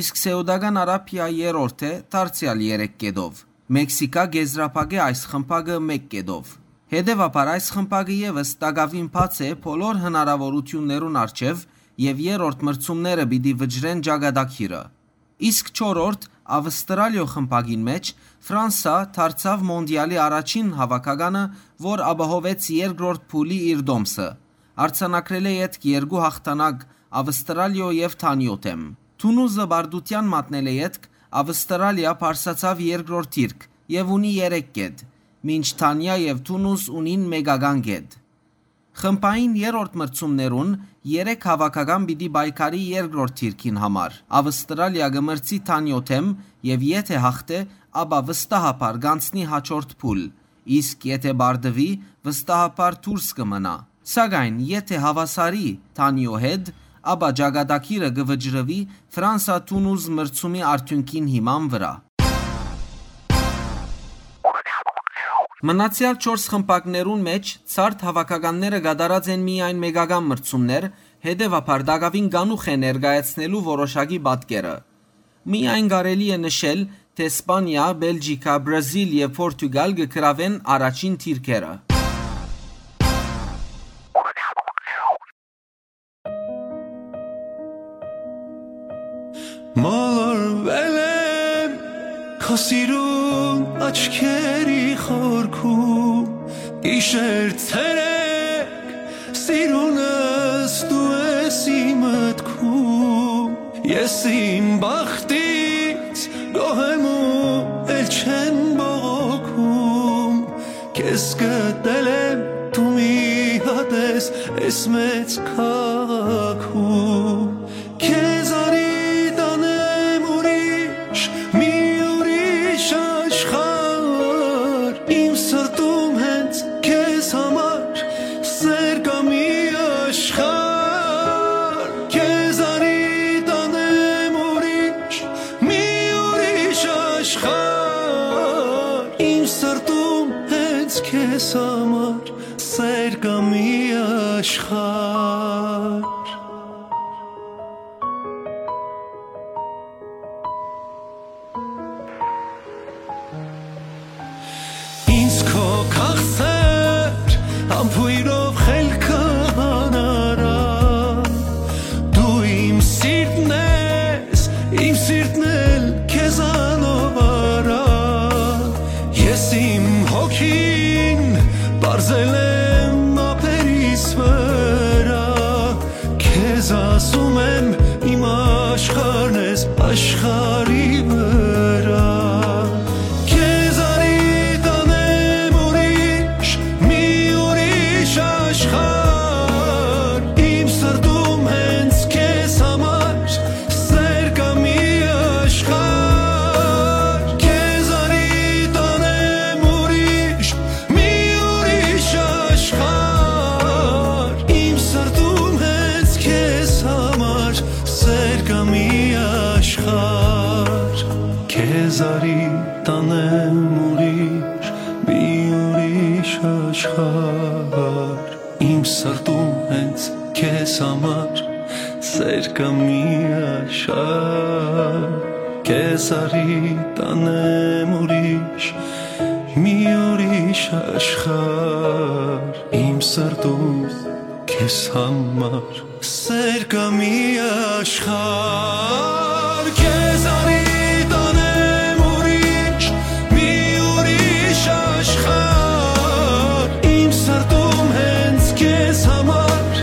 իսկ Սէուտական Արաբիա երրորդ է, դարձեալ երեք կետով։ Մեքսիքա կ'եզրափակէ այս խմբակը մէկ կետով։ Հետեւաբար այս խմբակը եւս տակաւին բաց է բոլոր հնարաւորութիւններուն առջեւ եւ երրորդ մրցումները պիտի վճռեն ճակատագիրը։ Իսկ չորրորդ, Ավստրալիոյ խմբակին մէջ, Ֆրանսա դարձաւ մոնդիալի առաջին հաւաքականը, որ ապահովեց երկրորդ փուլի իր տոմսը, արձանագրելէ ետք երկու յաղթանակ Ավստրալիոյ եւ Թանիոյ դէմ։ Թունուզը պարտութեան մատնելէ ետք Ավստրալիա բարձրացաւ երկրորդ դիրք եւ ունի երեք կետ, մինչ Թանիա եւ Թունուզ ունին մէկական կետ։ Խմբային երրորդ մրցումներուն երեք հաւաքական պիտի պայքարի երկրորդ դիրքին համար։ Ավստրալիա կը մրցի Թանիոյ դէմ եւ եթէ յաղթէ, ապա վստահաբար կ'անցնի յաջորդ փուլ, իսկ եթէ պարտուի, վստահաբար դուրս կը մնայ։ Սակայն եթէ հաւասարի Թանիոյ հետ, ապա ճակատագիրը կը վճռուի Ֆրանսա-Թունուզ մրցումի արդիւնքին հիման վրայ։ Մնացեալ չորս խմբակներուն մէջ ցարդ հաւաքականները կատարած են միայն մէկական մրցումներ, հետեւաբար տակաւին կանուխ է ներկայացնելու որոշակի պատկերը։ Միայն կարելի է նշել, թէ Սպանիա, Բելգիքա, Բրազիլ եւ Պորտուգալ կը գրաւեն առաջին դիրքերը։ Մոլորվել եմ քո սիրուն աչքերի խորքում, գիշեր ցերեկ սիրունս դու ես իմ մտքում, ես իմ բախտից գոհ եմ ու էլ չեն բողոքում, քեզ գտել եմ դու մի հատ ես այս մեծ քաղաքում, քեզ արի տանեմ ուրիշ, մի ուրիշ աշխարհ, իմ սրտում հենց քեզ համար սեր կա մի աշխարհ, քեզ արի տանեմ ուրիշ, մի ուրիշ աշխարհ, իմ սրտում հենց քեզ համար սեր կա մի աշխարհ։ Քո քաղցր համբոյրով խելքը հանարա, դու իմ սիրտն ես, իմ սիրտն էլ քեզանով արա։ Ես իմ հոգին պարզել եմ ափերիս վրայ, քեզ ասում եմ, իմ աշխարհն ես աշխարհի վրայ։ Քեզ արի տանեմ ուրիշ, մի ուրիշ աշխարհ, իմ սրտում հենց քեզ համար սեր կայ մի աշխարհ։ Քեզ արի տանեմ ուրիշ, մի ուրիշ աշխարհ, իմ սրտում հենց քեզ համար սեր կայ մի աշխարհ։ Քեզ արի տանեմ ուրիշ, մի ուրիշ աշխարհ, իմ սրտում հենց քեզ համար սեր կայ մի աշխարհ։ Քեզ արի տանեմ ուրիշ, մի ուրիշ աշխարհ, իմ սրտում քեզ համար սեր կայ մի աշխարհ։ Քեզ արի տանեմ ուրիշ, մի ուրիշ աշխարհ, իմ սրտում հենց քեզ համար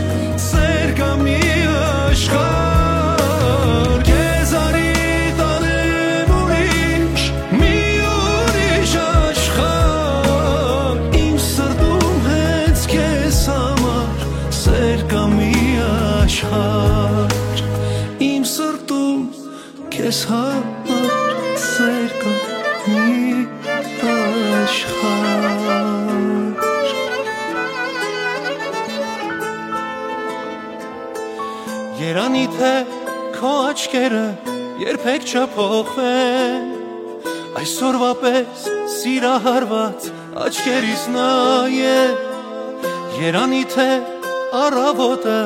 սեր կայ մի աշխարհ։ Քեզ արի տանեմ ուրիշ, մի ուրիշ աշխարհ, իմ սրտում հենց քեզ համար սեր կայ մի աշխարհ, իմ սրտում քեզ համար սեր կայ մի աշխարհ։ Երանի թէ քո աչքերը երբեք չփոխվեն, այսօրվա պես սիրահարված աչքերիս նայե։ Երանի թէ առավոտը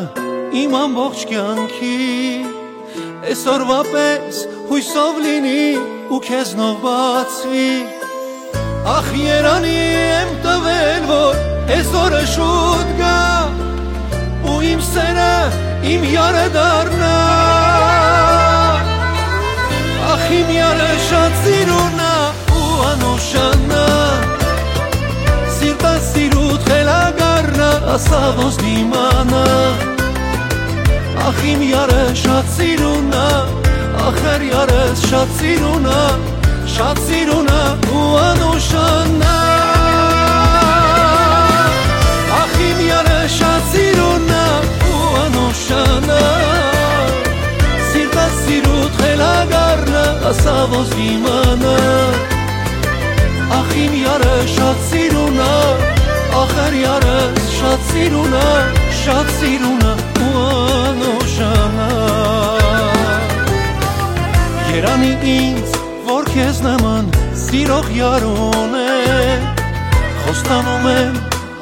իմ ամբողջ կեանքի այսօրվա պես յոյսով լինի ու քեզնով բացի։ Ախ, երանի եմ տվել, որ այսօրը շուտ գայ ու իմ սերը իմ յարը դառնայ։ Ախ, իմ յարը շատ սիրուն ա ու անուշանա, սիրտը սիրուդ խելագարնա, ասա ոնց դիմանա։ Ախ, իմ յարը շատ սիրուն ա, ախր յարս շատ սիրուն ա, շատ սիրուն ա ու անուշանա։ Ախ, իմ յարը շատ սիրուն ա ու անուշանա, սիրտը սիրուդ խելագարնա, ասա ոնց դիմանա։ Ախ, իմ յարը շատ սիրուն ա, ախր յարս շատ սիրուն ա, շատ սիրուն ա ու անուշանա։ Երանի ինձ, որ քեզ նման սիրող յար ունեմ, խոստանում եմ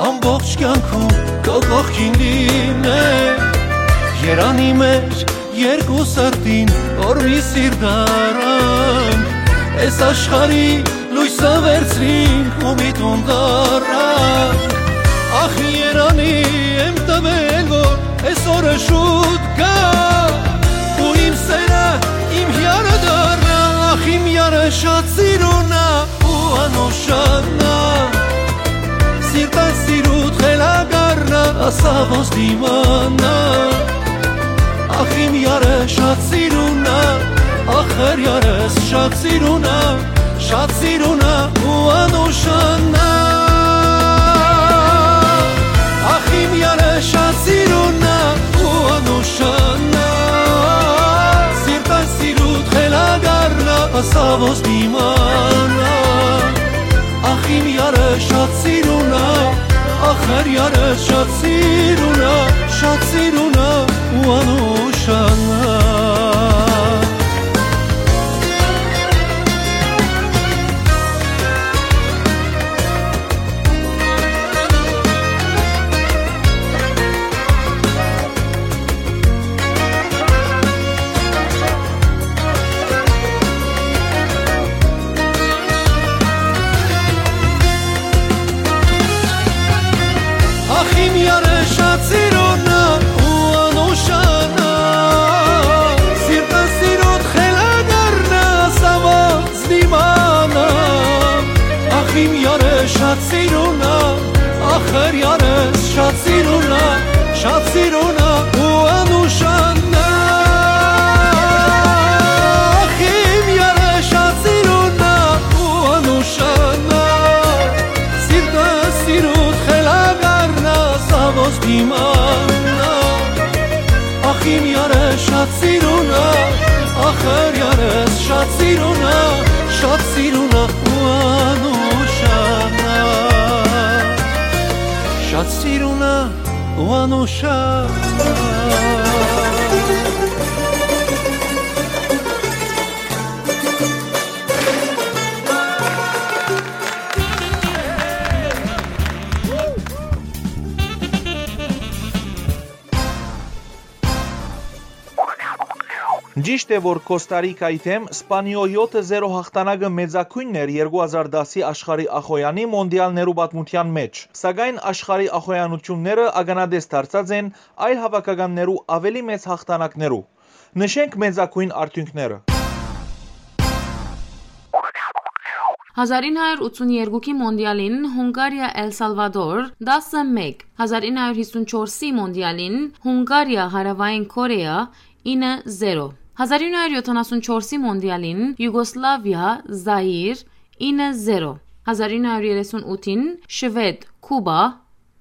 ամբողջ կեանքում քո կողքին լինեմ։ Երանի մեր երկու սրտին, որ մի սիրտ առանք, այս աշխարհի լոյսը վերցրինք ու մի տուն տարանք։ Ախ, երանի եմ տվել, որ այսօրը շուտ գայ ու իմ սերը իմ յարը դառնայ։ Ախ, իմ յարը շատ սիրուն ա ու անուշանա, սիրտը սիրուդ խելագարնա, ասա ոնց դիմանա։ Ախ, իմ յարը շատ սիրուն ա, ախր յարս շատ սիրուն ա, շատ սիրուն ա ու անուշանա։ Ախ, իմ յարը շատ սիրուն ա ու անուշանա, սիրտը սիրուդ խելագարնա, ասա ոնց դիմանա։ Ախ, իմ յարը շատ սիրուն ա, ախր յարս շատ սիրուն ա, շատ սիրուն ա ու անուշանա։ Իմ յարս շատ սիրուն ա, ախր յարս շատ սիրուն ա, շատ սիրուն ա ու անուշանն ա։ Ախ, իմ յարս շատ սիրուն ա ու անուշանն ա, սիրտը սիրուդ խելագարն ա, սա ոնց կ'իմանայ։ Ախ, իմ յարս շատ սիրուն ա, ախր յարս շատ սիրուն ա, շատ սիրուն ա ու անուշանն ա, շատ սիրուն ա ու անուշանն ա։ Ճիշդ է, որ Կոստա Ռիկայի դէմ Սպանիոյ եօթը զերո հաղթանակը մեծագոյնն էր երկու հազար տասի աշխարհի ախոյանի մոնդիալներու պատմութեան մէջ, սակայն աշխարհի ախոյանութիւնները ականատես դարձած են այլ հաւաքականներու աւելի մեծ հաղթանակներու։ Նշենք մեծագոյն արդիւնքները։ Հազար ինը հարիւր ութսուն երկուքի մոնդիալին Հունգարիա Էլ Սալվադոր՝ տասը մէկ, հազար ինը հարիւր յիսուն չորսի մոնդիալին Հունգարիա Հարաւային Քորեա՝ ինը զերո, հազար ինը հարիւր յոթանասուն չորսի մոնդիալին Յուգոսլավիա Զայիր՝ ինը զերո, հազար ինը հարիւր երեսուն ութին Շուեդ Քուբա՝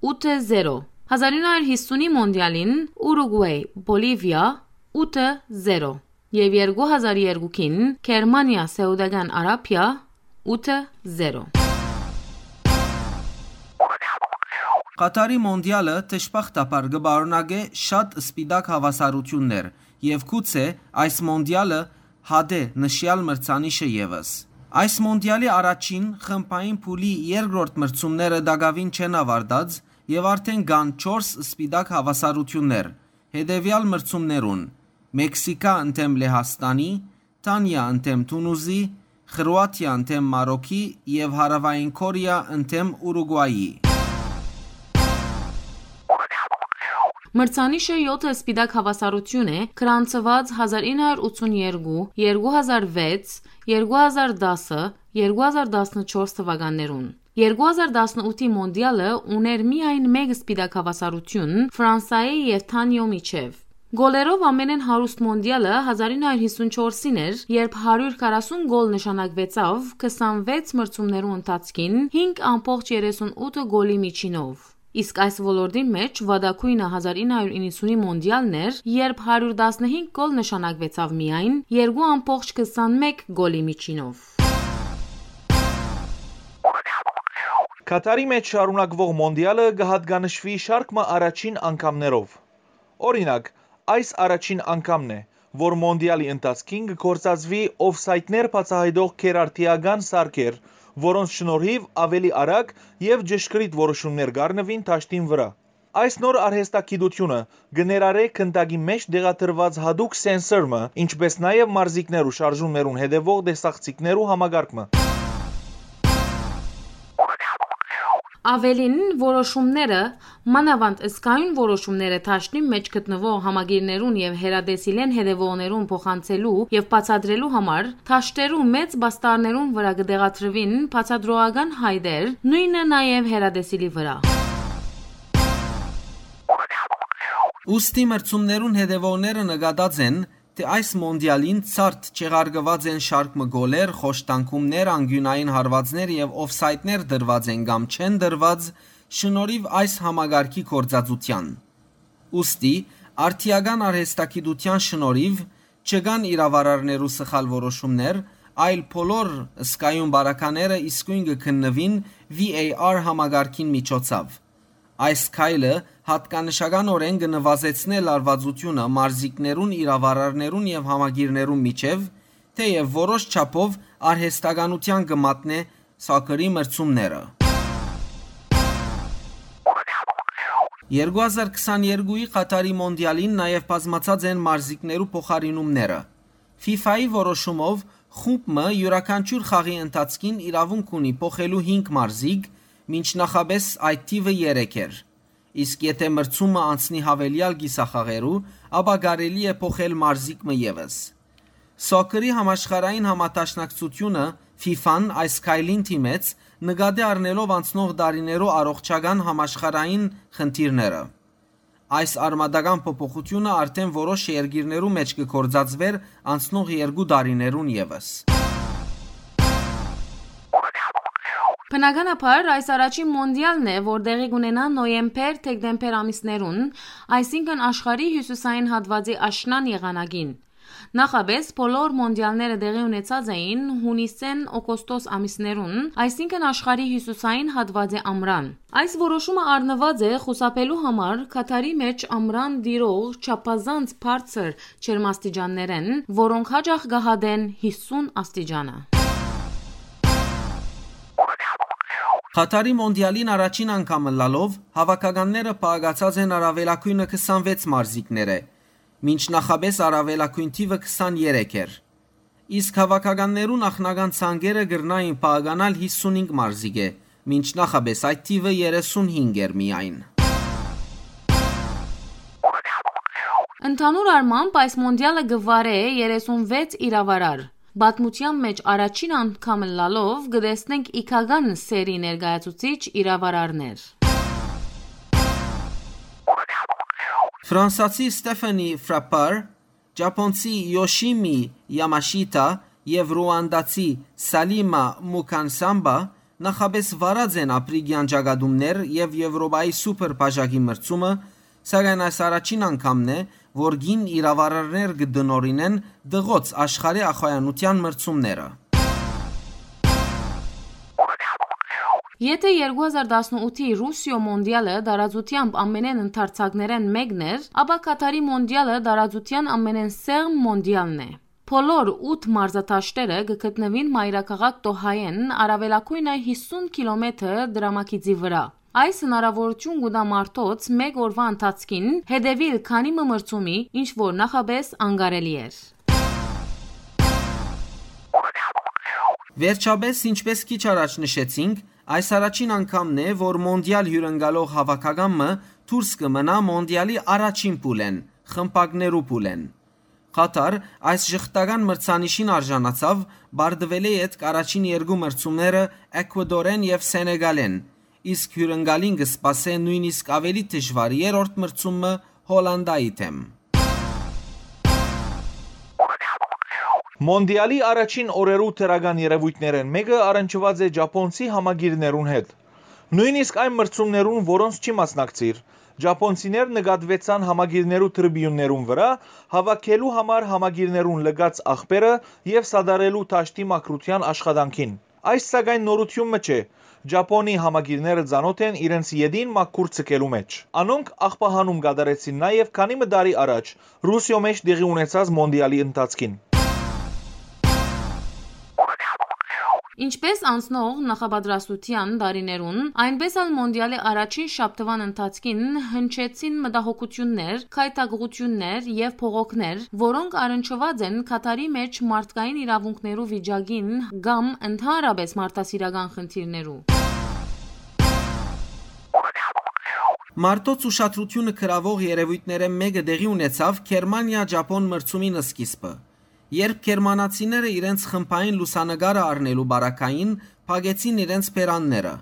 ութը զերո, հազար ինը հարիւր յիսունի մոնդիալին Ուրուգուայ Բոլիվիա՝ ութը զերո, եւ երկու հազար երկուքին Գերմանիա Սաուդական Արաբիա՝ ութը զերո։ Ղաթարի մոնդիալը դժբախտաբար կը պարունակէ շատ սպիտակ հաւասարութիւններ եւ գուցե այս մոնդիալը հատէ նշեալ մրցանիշը եւս։ Այս մոնդիալի առաջին խմբային փուլի երկրորդ մրցումները տակաւին չեն աւարտած եւ արդէն կան չորս սպիտակ հաւասարութիւններ հետեւեալ մրցումներուն՝ Մեքսիքա ընդդէմ Լեհաստանի, Դանիա ընդդէմ Թունուզի, Խրուաթիա ընդդէմ Մարոքի եւ Հարաւային Քորեա ընդդէմ Ուրուգուայի։ Մրցանիշը եօթը սպիտակ հաւասարութիւն է, գրանցուած հազար ինը հարիւր ութսուն երկու, երկու հազար վեց, երկու հազար տասը, երկու հազար տասնչորս թվականներուն։ Երկու հազար տասնութի մոնդիալը ունէր միայն մէկ սպիտակ հաւասարութիւն Ֆրանսայի եւ Թանիոյ միջեւ։ Գոլերով ամենէն հարուստ մոնդիալը հազար ինը հարիւր յիսուն չորսին էր, երբ հարիւր քառասուն գոլ նշանակուեցաւ քսանվեց մրցումներու ընթացքին հինգ ամբողջ երեսուն ութը գոլի միջինով։ Իսկ այս ոլորտին մէջ վատագոյնը հազար ինը հարիւր իննսունի մոնդիալն էր, երբ հարիւր տասնհինգ գոլ նշանակուեցաւ միայն երկու ամբողջ քսանմէկ գոլի միջինով։ Կաթարի մէջ շարունակուող մոնդիալը կը յատկանշուի շարք մը առաջին անգամներով։ Օրինակ, այս առաջին անգամն է, որ մոնդիալի ընթացքին կը գործածուի օֆսայդներ բացայայտող գերարդիական սարքեր, որոնց շնորհիվ աւելի արագ եւ ճշգրիտ որոշումներ կ'առնուին դաշտին վրայ։ Այս նոր արհեստագիտութիւնը կը ներառէ գնդակի մէջ տեղադրուած յատուկ սենսոր մը, ինչպէս նաեւ մարզիկներու շարժումներուն հետեւող տեսախցիկներու համակարգ մը։ Աւելին, որոշումները, մանաւանդ զգայուն որոշումները դաշտին մէջ գտնուող համակիրներուն եւ հեռատեսիլէն հետեւողներուն փոխանցելու եւ բացատրելու համար դաշտերու մեծ պաստառներուն վրայ կը տեղադրուին բացատրողական հայտեր, նոյնը նաեւ հեռատեսիլի վրայ։ Ուստի մրցումներուն հետեւողները նկատած են, թէ այս մոնդիալին ցարդ չեղարկուած են շարք մը գոլեր, խոշտանգումներ, անկիւնային հարուածներ եւ օֆսայդներ տրուած են կամ չեն տրուած շնորհիվ այս համակարգի գործածութեան։ Ուստի, արդիական արհեստագիտութեան շնորհիվ չկան իրավարարներու սխալ որոշումներ, այլ բոլոր զգայուն պարագաները իսկոյն կը քննուին V A R համակարգին միջոցաւ։ Այս քայլը յատկանշականօրէն կը նուազեցնէ լարուածութիւնը մարզիկներուն, իրավարարներուն եւ համակիրներուն միջեւ, թէեւ որոշ չափով արհեստականութեան կը մատնէ սոքերի մրցումները։ Երկու հազար քսաներկուի Ղաթարի մոնդիալին նաեւ բազմացած են մարզիկներու փոխարինումները։ Ֆիֆայի որոշումով խումբ մը իւրաքանչիւր խաղի ընթացքին իրաւունք ունի փոխելու հինգ մարզիկ, մինչ նախապէս այդ թիւը երեք էր։ Իսկ եթէ մրցումը անցնի յաւելեալ կիսախաղերու, ապա կարելի է փոխել մարզիկ մը եւս։ Սոքերի համաշխարհային համադաշնակցութիւնը՝ ֆիֆան, այս քայլին դիմեց նկատի առնելով անցնող տարիներու առողջական համաշխարհային խնդիրները։ Այս արմատական փոփոխութիւնը արդէն որոշ երկիրներու մէջ կը գործածուէր անցնող երկու տարիներուն եւս։ Բնականաբար, այս առաջին մոնդիալն է, որ տեղի կունենայ նոյեմբեր-դեկտեմբեր ամիսներուն, այսինքն՝ աշխարհի հիւսիսային հատուածի աշնան եղանակին։ Նախապէս բոլոր մոնդիալները տեղի ունեցած էին յունիսէն օգոստոս ամիսներուն, այսինքն՝ աշխարհի հիւսիսային հատուածի ամրան։ Այս որոշումը առնուած է խուսափելու համար Քաթարի մէջ ամրան տիրող չափազանց բարձր ջերմաստիճաններէն, որոնք յաճախ կը հատեն հիսուն աստիճանը։ Քաթարի մոնդիալին առաջին անգամ ըլլալով, հաւաքականները պահակացած են առաւելագոյնը քսանվեց մարզիկներէ, մինչ նախապէս առաւելագոյն թիւը քսաներեք էր։ Իսկ հաւաքականներու նախնական ցանկերը կրնային պահականալ հիսունհինգ մարզիկէ, մինչ նախապէս այդ թիւը երեսունհինգ էր միայն։ Ընդհանուր առմամբ, այս մոնդիալը կը վարէ երեսունվեց իրավարար։ Պատմութեան մէջ առաջին անգամ ըլլալով կը տեսնենք իգական սերի ներկայացուցիչ իրավարարներ։ Ֆրանսացի Ստեֆանի Ֆրապար, ճապոնցի Յոշիմի Յամաշիտա եւ ռուանդացի Սալիմա Մուքանսամբա նախապէս վարած են Ափրիկեան ճակատումներ եւ Եւրոպայի սուպեր բաժակի մրցումը, սակայն այս առաջին անգամն է, որ կին իրավարարներ կը տնօրինեն տղոց աշխարհի ախոյանութեան մրցումները։ Եթէ երկու հազար տասնութի Ռուսիոյ մոնդիալը տարածութեամբ ամենէն ընդարձակներէն մէկն էր, ապա Քաթարի մոնդիալը տարածութեան ամենէն սեղմ մոնդիալն է։ Բոլոր ութ մարզադաշտերը կը գտնուին մայրաքաղաք Տոհայէն առաւելագոյնը հիսուն կիլոմեթր դրամագիծի վրայ։ Այս հնարաւորութիւն կու տայ մարդոց մէկ օրուայ ընթացքին հետեւիլ քանի մը մրցումի, ինչ որ նախապէս անկարելի էր։ Վերջապէս, ինչպէս քիչ առաջ նշեցինք, այս առաջին անգամն է, որ մոնդիալ հիւրընկալող հաւաքական մը դուրս կը մնայ մոնդիալի առաջին փուլէն, խմբակներու փուլէն։ Քաթար այս ժխտական մրցանիշին արժանացաւ, պարտուելէ ետք առաջին երկու մրցումները Էքուադորէն եւ Սենեգալէն, իսկ հիւրընկալին կը սպասէ նոյնիսկ աւելի դժուար երրորդ մրցումը Հոլանդայի դէմ։ Մոնդիալի առաջին օրերու դրական երեւոյթներէն մէկը առնչուած է ճապոնցի համակիրներուն հետ։ Նոյնիսկ այն մրցումներուն, որոնց չի մասնակցիր, ճապոնցիներ նկատուեցան համակիրներու տրիբիուններուն վրայ, հաւաքելու համար համակիրներուն լքած աղբերը եւ սատարելու դաշտի մաքրութեան աշխատանքին։ Այս, սակայն, նորութիւն մը չէ։ Ճապոնի համակիրները ծանօթ են իրենց ետին մաքուր ձգելու մէջ։ Անոնք աղբահանում կատարեցին նաեւ քանի մը տարի առաջ Ռուսիոյ մէջ տեղի ունեցած մոնդիալի ընթացքին։ Ինչպէս անցնող նախապատրաստութեան տարիներուն, այնպէս ալ մոնդիալի առաջին շաբթուան ընթացքին հնչեցին մտահոգութիւններ, գայթակղութիւններ եւ բողոքներ, որոնք առնչուած են Քաթարի մէջ մարդկային իրաւունքներու վիճակին կամ ընդհանրապէս մարդասիրական խնդիրներու։ Մարդոց ուշադրութիւնը գրաւող երեւոյթներէն մէկը տեղի ունեցաւ Գերմանիա-Ճապոն մրցումին սկիզբը, երբ գերմանացիները իրենց խմբային լուսանկարը առնելու պարագային փակեցին իրենց բերանները։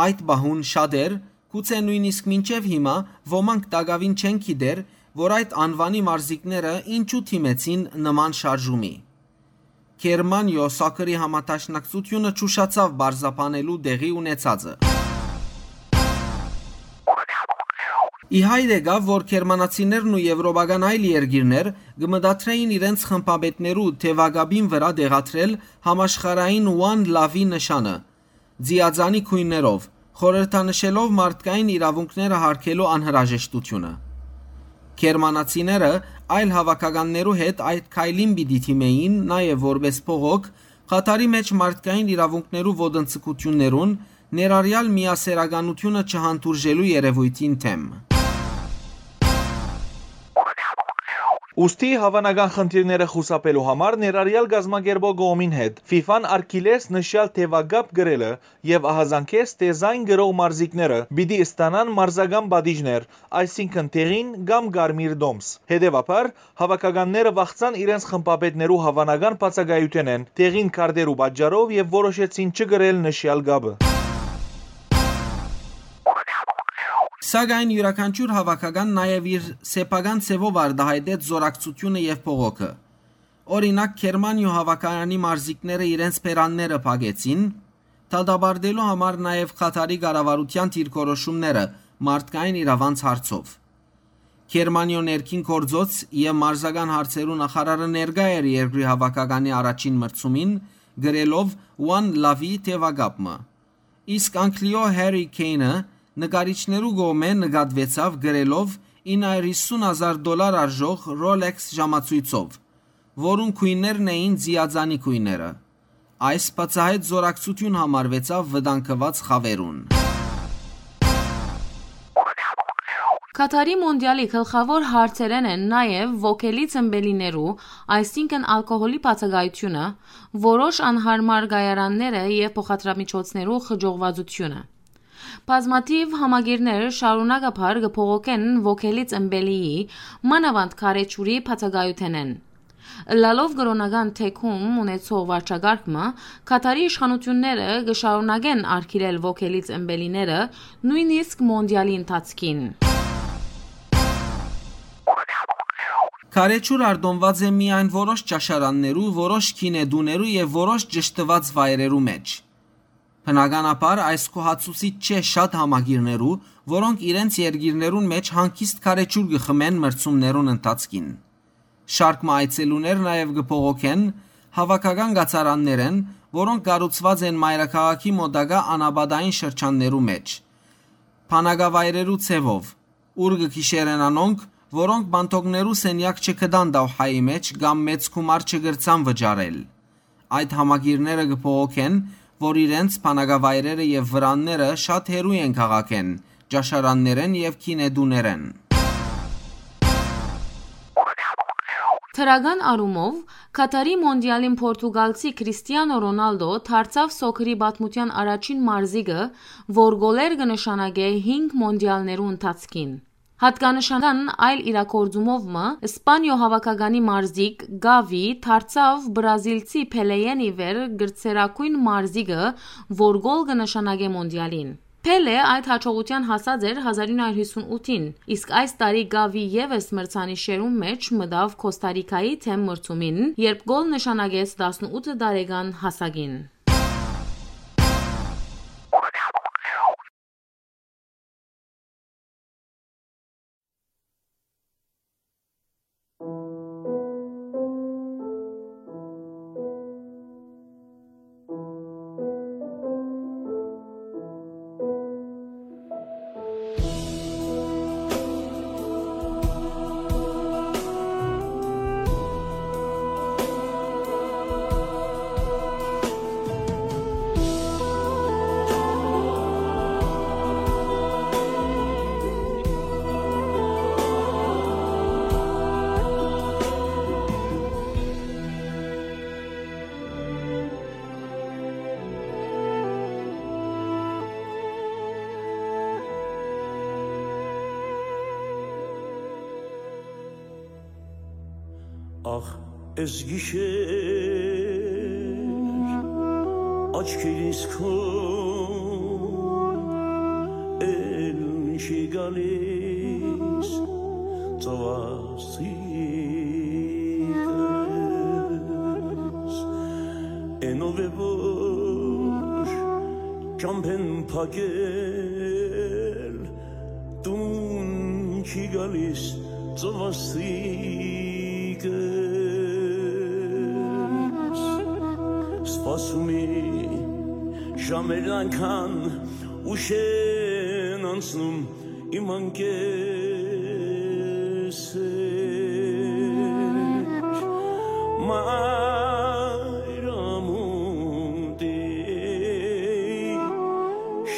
Այդ պահուն շատեր, գուցէ նոյնիսկ մինչեւ հիմա ոմանք տակաւին չեն գիտեր, որ այդ անուանի մարզիկները ինչու դիմեցին նման շարժումի։ Գերմանիոյ Սաքրի համադաշնակցութիւնը չուշացաւ պարզաբանելու տեղի ունեցածը։ Ի հայտ եկաւ, որ գերմանացիներն ու եվրոպական այլ երկիրներ կը մտադրէին իրենց խմբապետներու թեւակապին վրայ տեղադրել համաշխարհային One Love-ի նշանը, ձիածանի գոյներով, խորհրդանշելով մարդկային իրաւունքները յարգելու անհրաժեշտութիւնը։ Գերմանացիները այլ հաւաքականներու հետ այդ քայլին պիտի դիմէին նաեւ որպէս բողոք Քաթարի մէջ մարդկային իրաւունքներու ոտնձգութիւններուն, ներառեալ միասեռականութիւնը չհանդուրժելու երեւոյթին դէմ։ Ուստի հաւանական խնդիրները խուսափելու համար ներառեալ կազմակերպող կողմին հետ, ֆիֆան արգիլեց նշեալ թեւակապ կրելը եւ ահազանգեց, թէ զայն կրող մարզիկները պիտի ստանան մարզական պատիժներ, այսինքն՝ դեղին կամ կարմիր տոմս։ Հետեւաբար, հաւաքականները վախցան իրենց խմբապետներու հաւանական բացակայութենէն, դեղին քարտերու պատճառով, եւ որոշեցին չկրել նշեալ կապը։ Սակայն իւրաքանչիւր հաւաքական նաեւ իր սեփական ձեւով արտայայտեց զօրակցութիւնը եւ բողոքը։ Օրինակ, Գերմանիոյ հաւաքականի մարզիկները իրենց բերանները փակեցին, դատապարտելու համար նաեւ Խաթարի կառավարութեան դիրքորոշումները մարդկային իրաւանց հարցով։ Գերմանիոյ ներքին գործոց եւ մարզական հարցերու նախարարը ներկայ էր երկրի հաւաքականի առաջին մրցումին, կրելով One Love-ի թեւակապ մը։ Իսկ Անգլիոյ Harry Kane-ը նկարիչներու կողմէ նկատուեցաւ կրելով ինը հարիւր յիսուն հազար դոլար արժող Rolex ժամացոյցով, որուն գոյներն էին ձիածանի գոյները։ Այս բացահայտ զօրակցութիւն համարուեցաւ վտանգուած խաւերուն։ Քաթարի մոնդիալի գլխաւոր հարցերէն են նաեւ ոգելի ծմպելիներու, այսինքն՝ ալկոհոլի բացակայութիւնը, որոշ անհարմար կայարանները եւ փոխադրամիջոցներու խճողուածութիւնը։ Բազմաթիւ համակիրներ շարունակաբար կը բողոքեն ոգելի ծմպելիի, մանաւանդ քարեչուրի բացակայութենէն։ Ըլլալով կրօնական թեքում ունեցող վարչակարգ մը, Քաթարի իշխանութիւնները կը շարունակեն արգիլել ոգելի ծմպելիները, նոյնիսկ մոնդիալի ընթացքին։ Քարեչուր արտոնուած է միայն որոշ ճաշարաններու, որոշ գինետուներու եւ որոշ ճշդուած վայրերու մէջ։ Բնականաբար, այս գոհացուցիչ չէ շատ համակիրներու, որոնք իրենց երկիրներուն մէջ հանգիստ քարեչուր կը խմեն մրցումներուն ընթացքին։ Շարք մը այցելուներ նաեւ կը բողոքեն հաւաքական կացարաններէն, որոնք կառուցուած են մայրաքաղաքի մօտակայ անապատային շրջաններու մէջ։ Բանակավայրերու ձեւով, ուր կը գիշերեն անոնք, որոնք պանդոկներու սենեակ չգտան Դաուհայի մէջ կամ մեծ գումար չկրցան վճարել։ Այդ համակիրները կը բողոքեն, որ իրենց բանակավայրերը եւ վրանները շատ հեռու են քաղաքէն, ճաշարաններէն եւ գինետուներէն։ Դրական առումով, Քաթարի մոնդիալին պորտուգալցի Քրիստիանո Ռոնալդո դարձաւ սոքերի պատմութեան առաջին մարզիկը, որ գոլեր կը նշանակէ հինգ մոնդիալներու ընթացքին։ Յատկանշական այլ իրագործումով մը, Սպանիոյ հաւաքականի մարզիկ Գավի դարձաւ բրազիլցի Փելեէն ի վեր գրծերագոյն մարզիկը, որ գոլ կը նշանակէ մոնդիալին։ Փելէ այդ յաջողութեան հասած էր հազար ինը հարիւր յիսուն ութին, իսկ այս տարի Գավի եւս մրցանիշերուն մէջ մտաւ Քոստա Ռիքայի դէմ մրցումին, երբ գոլ նշանակեց տասնութ տարեկան հասակին։ Ախ, էս գիշեր աչքերիս քո էլ չի գալիս ծովասիկս, էնով է որ ճամփեն փակել տուն չի գալիս ծովասիկս, սպասում է ժամերն այնքան ուշ են անցնում իմ անկեսեր, մայրամուտի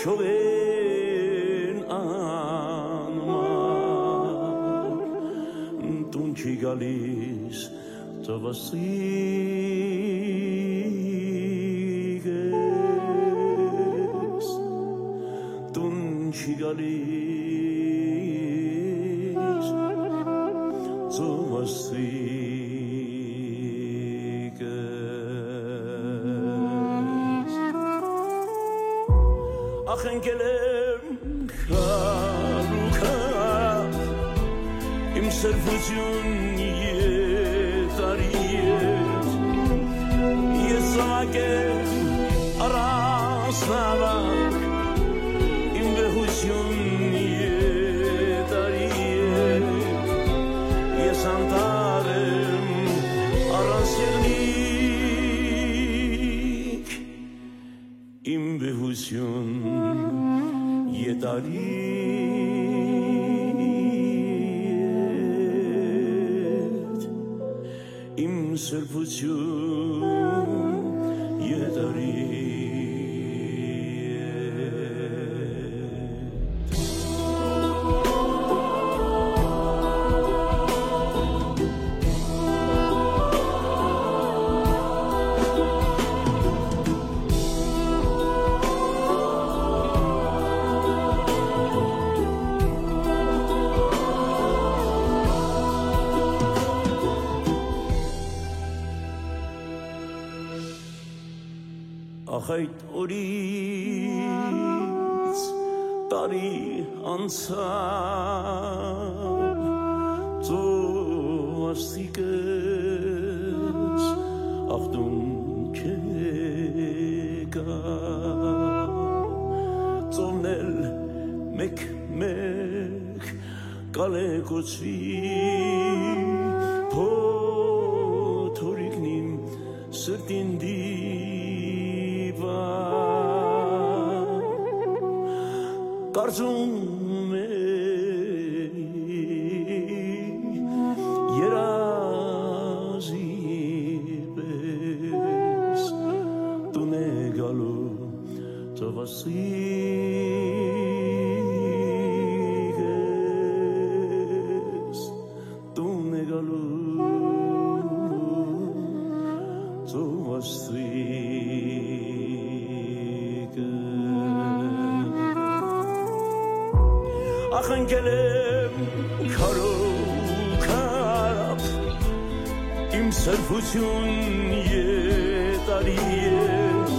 շողերն անմար տուն չի Գալիս ծովասիկ ես, տուն չի գալիս ծովասիկ ես։ Ախ, ընկել եմ քարուքա, իմ սրբություն եթարի ես, ես զաւակ եմ առանց նամակ, իմ վեհություն եթարի ես, ես անտառ եմ առանց եղնիկ, իմ վեհություն եթարի ես, իմ սրբություն եթարի ես։ Ախ, այդ օրից տարի անցաւ, ծովասիկ ես, ախտուն չեկա, ծովն էլ մեկ-մեկ կալեկուցուի փոթորիկն իմ սրտին դիպա։ Կարծում էի երազի պես տուն է գալու ծովասիկ ես, տուն է գալու ծովասիկ ես։ Ախ, ընկել եմ քարոքապ, իմ սրբություն եթարի ես,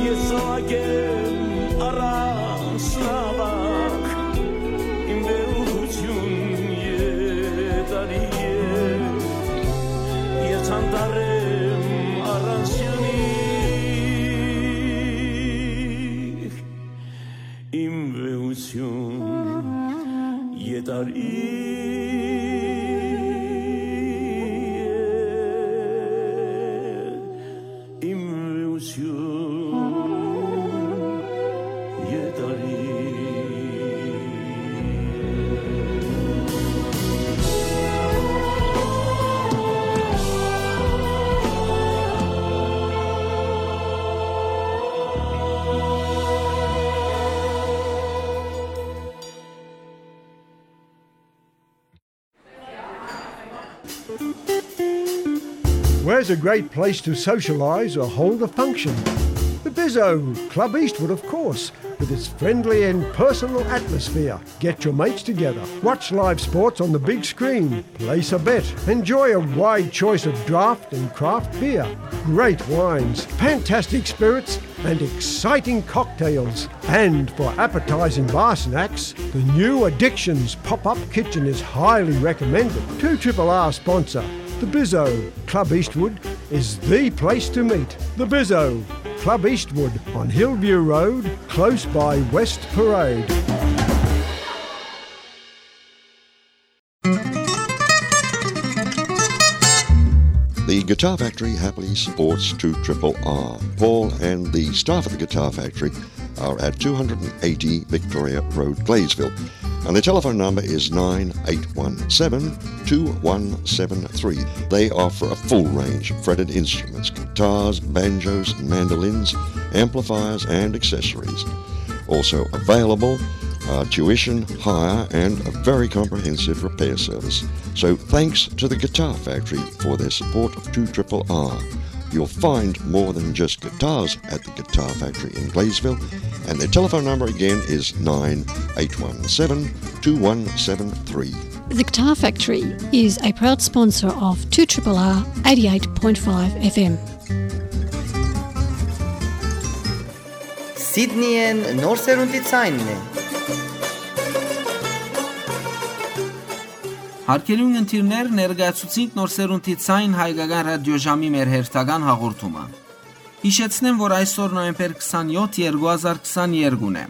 ես զաւակ եմ առանց նամակ, իմ վեհություն եթարի ես, ես անտառ եմ առանց եղնիկ, իմ վեհություն եթարի ես, իմ վեհություն եթարի ես։ Where's a great place to socialise or hold a function? The Bizzo, Club Eastwood, of course, with its friendly and personal atmosphere. Get your mates together, watch live sports on the big screen, place a bet, enjoy a wide choice of draft and craft beer, great wines, fantastic spirits, and exciting cocktails. And for appetising bar snacks, the new Addictions pop-up kitchen is highly recommended. Two Triple R sponsor, the Bizzo, Club Eastwood, is the place to meet. The Bizzo, Club Eastwood on Hillview Road, close by West Parade. The Guitar Factory happily supports two triple R. Paul and the staff at the Guitar Factory are at two hundred and eighty Victoria Road, Gladesville, and the telephone number is nine eight one seven, two one seven three. They offer a full range of fretted instruments, guitars, banjos, mandolins, amplifiers, and accessories. Also available uh, tuition, hire, and a very comprehensive repair service. So thanks to the Guitar Factory for their support of two triple R. You'll find more than just guitars at the Guitar Factory in Gladesville, and their telephone number again is nine eight one seven two one seven three. The Guitar Factory is a proud sponsor of two triple R eighty-eight point five F M. Սիդնիեն նոր սերունդի ցայնն է։ Հարգելի ունգընտիրներ, ներկայացուցինք նոր սերունդի ցայն հայկական ռադիոժամի մեր հերթական հաղորդումը։ Յիշեցնեմ, որ այսօր նոյեմբեր քսանեօթ, երկու հազար քսաներկուն է։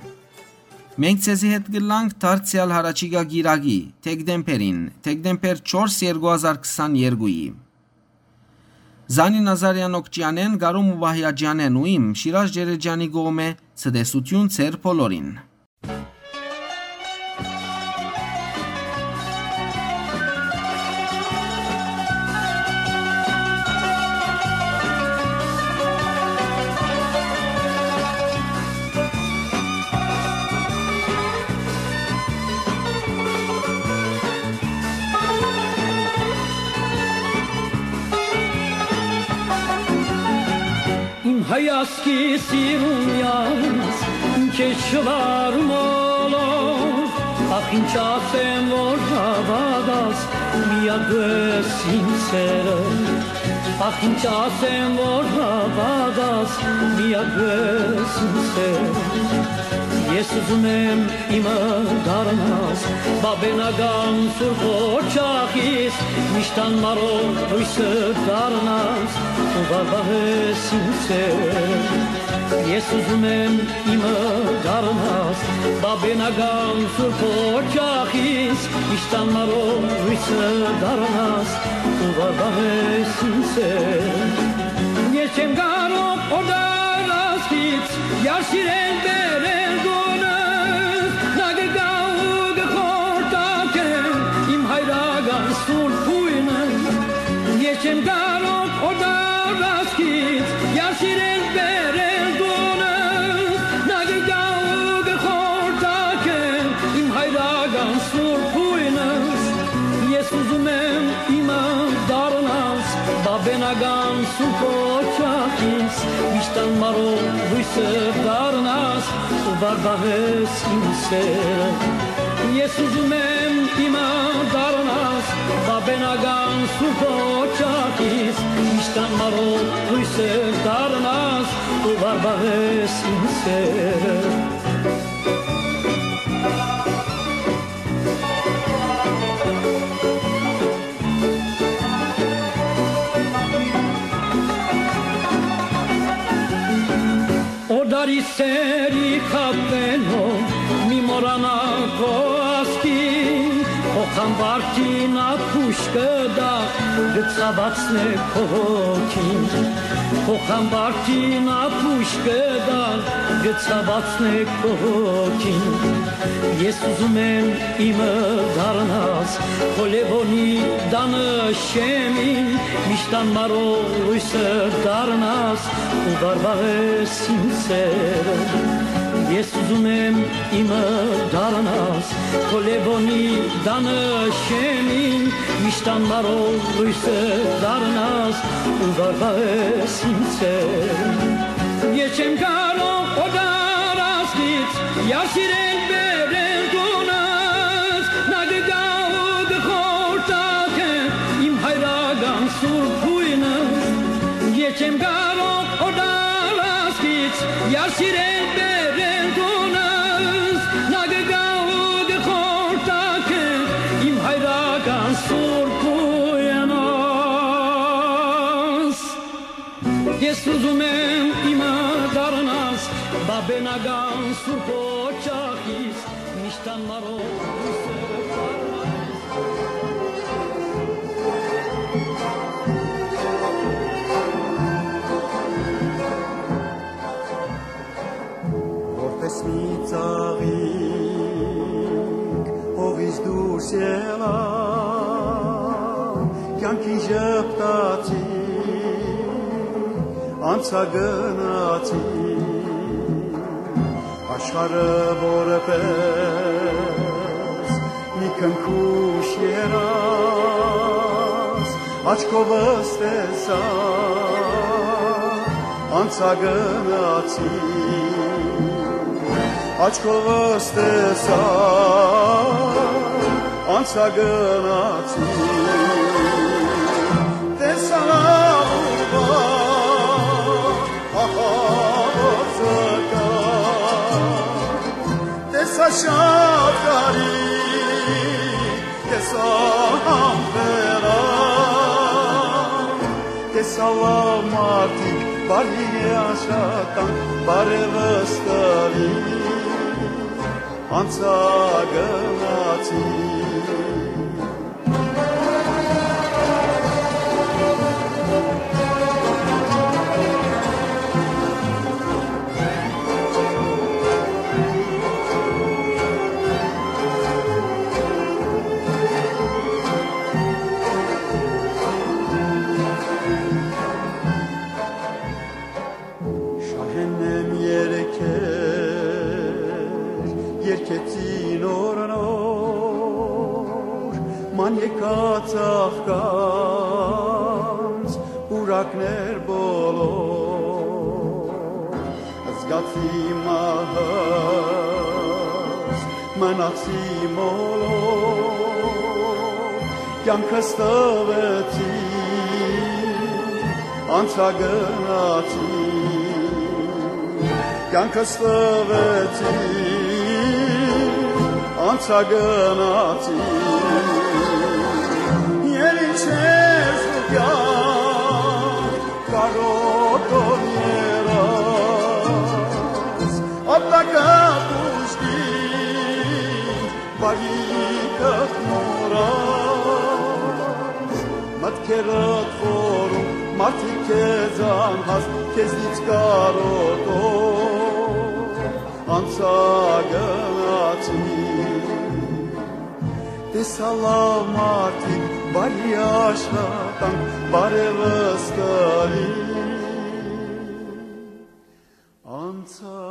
Մենք ձեզի հետ կլանք դարձեալ հառաջիկայ կիրակի, դեկտեմբերին, դեկտեմբեր չորս, երկու հազար քսաներկուի։ Զանի Նազարեան Օքճեանեն, Գարում Ուվահիաջեանեն ու իմ Շիրաժ Ջերեջանի կողմէ ցտեսություն ձեր բոլորին։ Իմ հայ ազգի սիրուն յանց, իմ քեզ շվարու մոլոր, ախ, ինչ ասեմ, որ հաւատաս, միակ ես իմ սերը, ախ, ինչ ասեմ, որ հաւատաս, միակ ես իմ սերը։ Ես ուզում եմ իմը դառնաս, բաբենական սուրբ օջախիս, միշտ անմարով լոյսը դառնաս, ու վարվահես իմ սերը։ Ես ուզում եմ իմը դառնաս, բաբենական սուրբ օջախիս, միշտ անմարով լոյսը դառնաս, ու վարվահես իմ սերը։ Ես չեմ կարող օտար ազգից, յար սիրել բերել գոնս, նա կգայ ու կխորտակե իմ հայրական սուրբ գոյնը։ Ես չեմ կարող օտար ազգից, յար սիրել բերել գոնս, նա կգայ ու կխորտակե իմ հայրական սուրբ գոյնս։ Ես ուզում եմ իմը դառնաս, բաբենական սուրբ օջախիս, միշտ անմարով լոյսը դառնաս, ու վարդահես իմ սերը։ Ես ուզում եմ իմը դառնաս, բաբենական սուրբ օջախիս, միշտ անմարով լոյսը դառնաս, ու վարդահես իմ սերը։ Օտարի սերի խաբենով մի մոռանալ քո ազգին, քո խամբարտին ափուշ կտա, կը ցաւացնէ քո հոգին, քո խամբարտին ափուշ կտա, կը ցաւացնէ քո հոգին։ Ես ուզում եմ իմը դառնաս, քո Լեւոնի տանը շեմին, միշտ անմարով լոյսը դառնաս ու վարվահես իմ սերը։ Ես ուզում եմ իմը դառնաս, քո Լեւոնի տանը շեմին, միշտ անմարով լոյսը դառնաս ու վարվահես իմ սերը։ Ես չեմ կարող օտար ազգից յար սիրել բերել գոնս, նա կգայ ու կխորտակէ իմ հայրական սուրբ գոյնս։ Ես չեմ կարող օտար ազգից յար սիրել բերել գոնս, նա կգայ ու կխորտակէ իմ հայրական սուրբ գոյնս։ Ես ուզում եմ իմը դառնաս, բաբենական սուրբ օջախիս, միշտ անմարով լոյսը դառնաս։ Որպես մի ծաղիկ հողից դուրս ելա, կյանքին ժպտացի, անցա գնացի, Աշխարհը որպէս մի քնքուշ երազ, աչքովս տեսայ, անցա գնացի, աչքովս տեսայ, անցա գնացի, տեսայ ահա որ զգայ, տեսայ շատ կարի, տեսայ համբերան, տեսայ լաւ մարդիկ, բարի աշխատանք, բարեւս տուի, անցայ գնացի։ Շահեննեմ երգեր, երգեցի նոր-նոր, ման եկած աղքանց պուրակներ բոլոր, զգացի մահս, մնացի մոլոր, կեանքս տուեցի, անցայ գնացի, կեանքս տուեցի, անցայ գնացի, ել ինչ ես դու կեանք կարոտոր երազ, ապտակը կուժգին, բարիքդ մոռաս, մտքերդ խորում, մարդիկ քեզ անհաս, քեզնից կարոտոր անցայ գնացի, տեսայ լաւ մարդիկ, բարի աշխատանք, բարեւս տուի, անցայ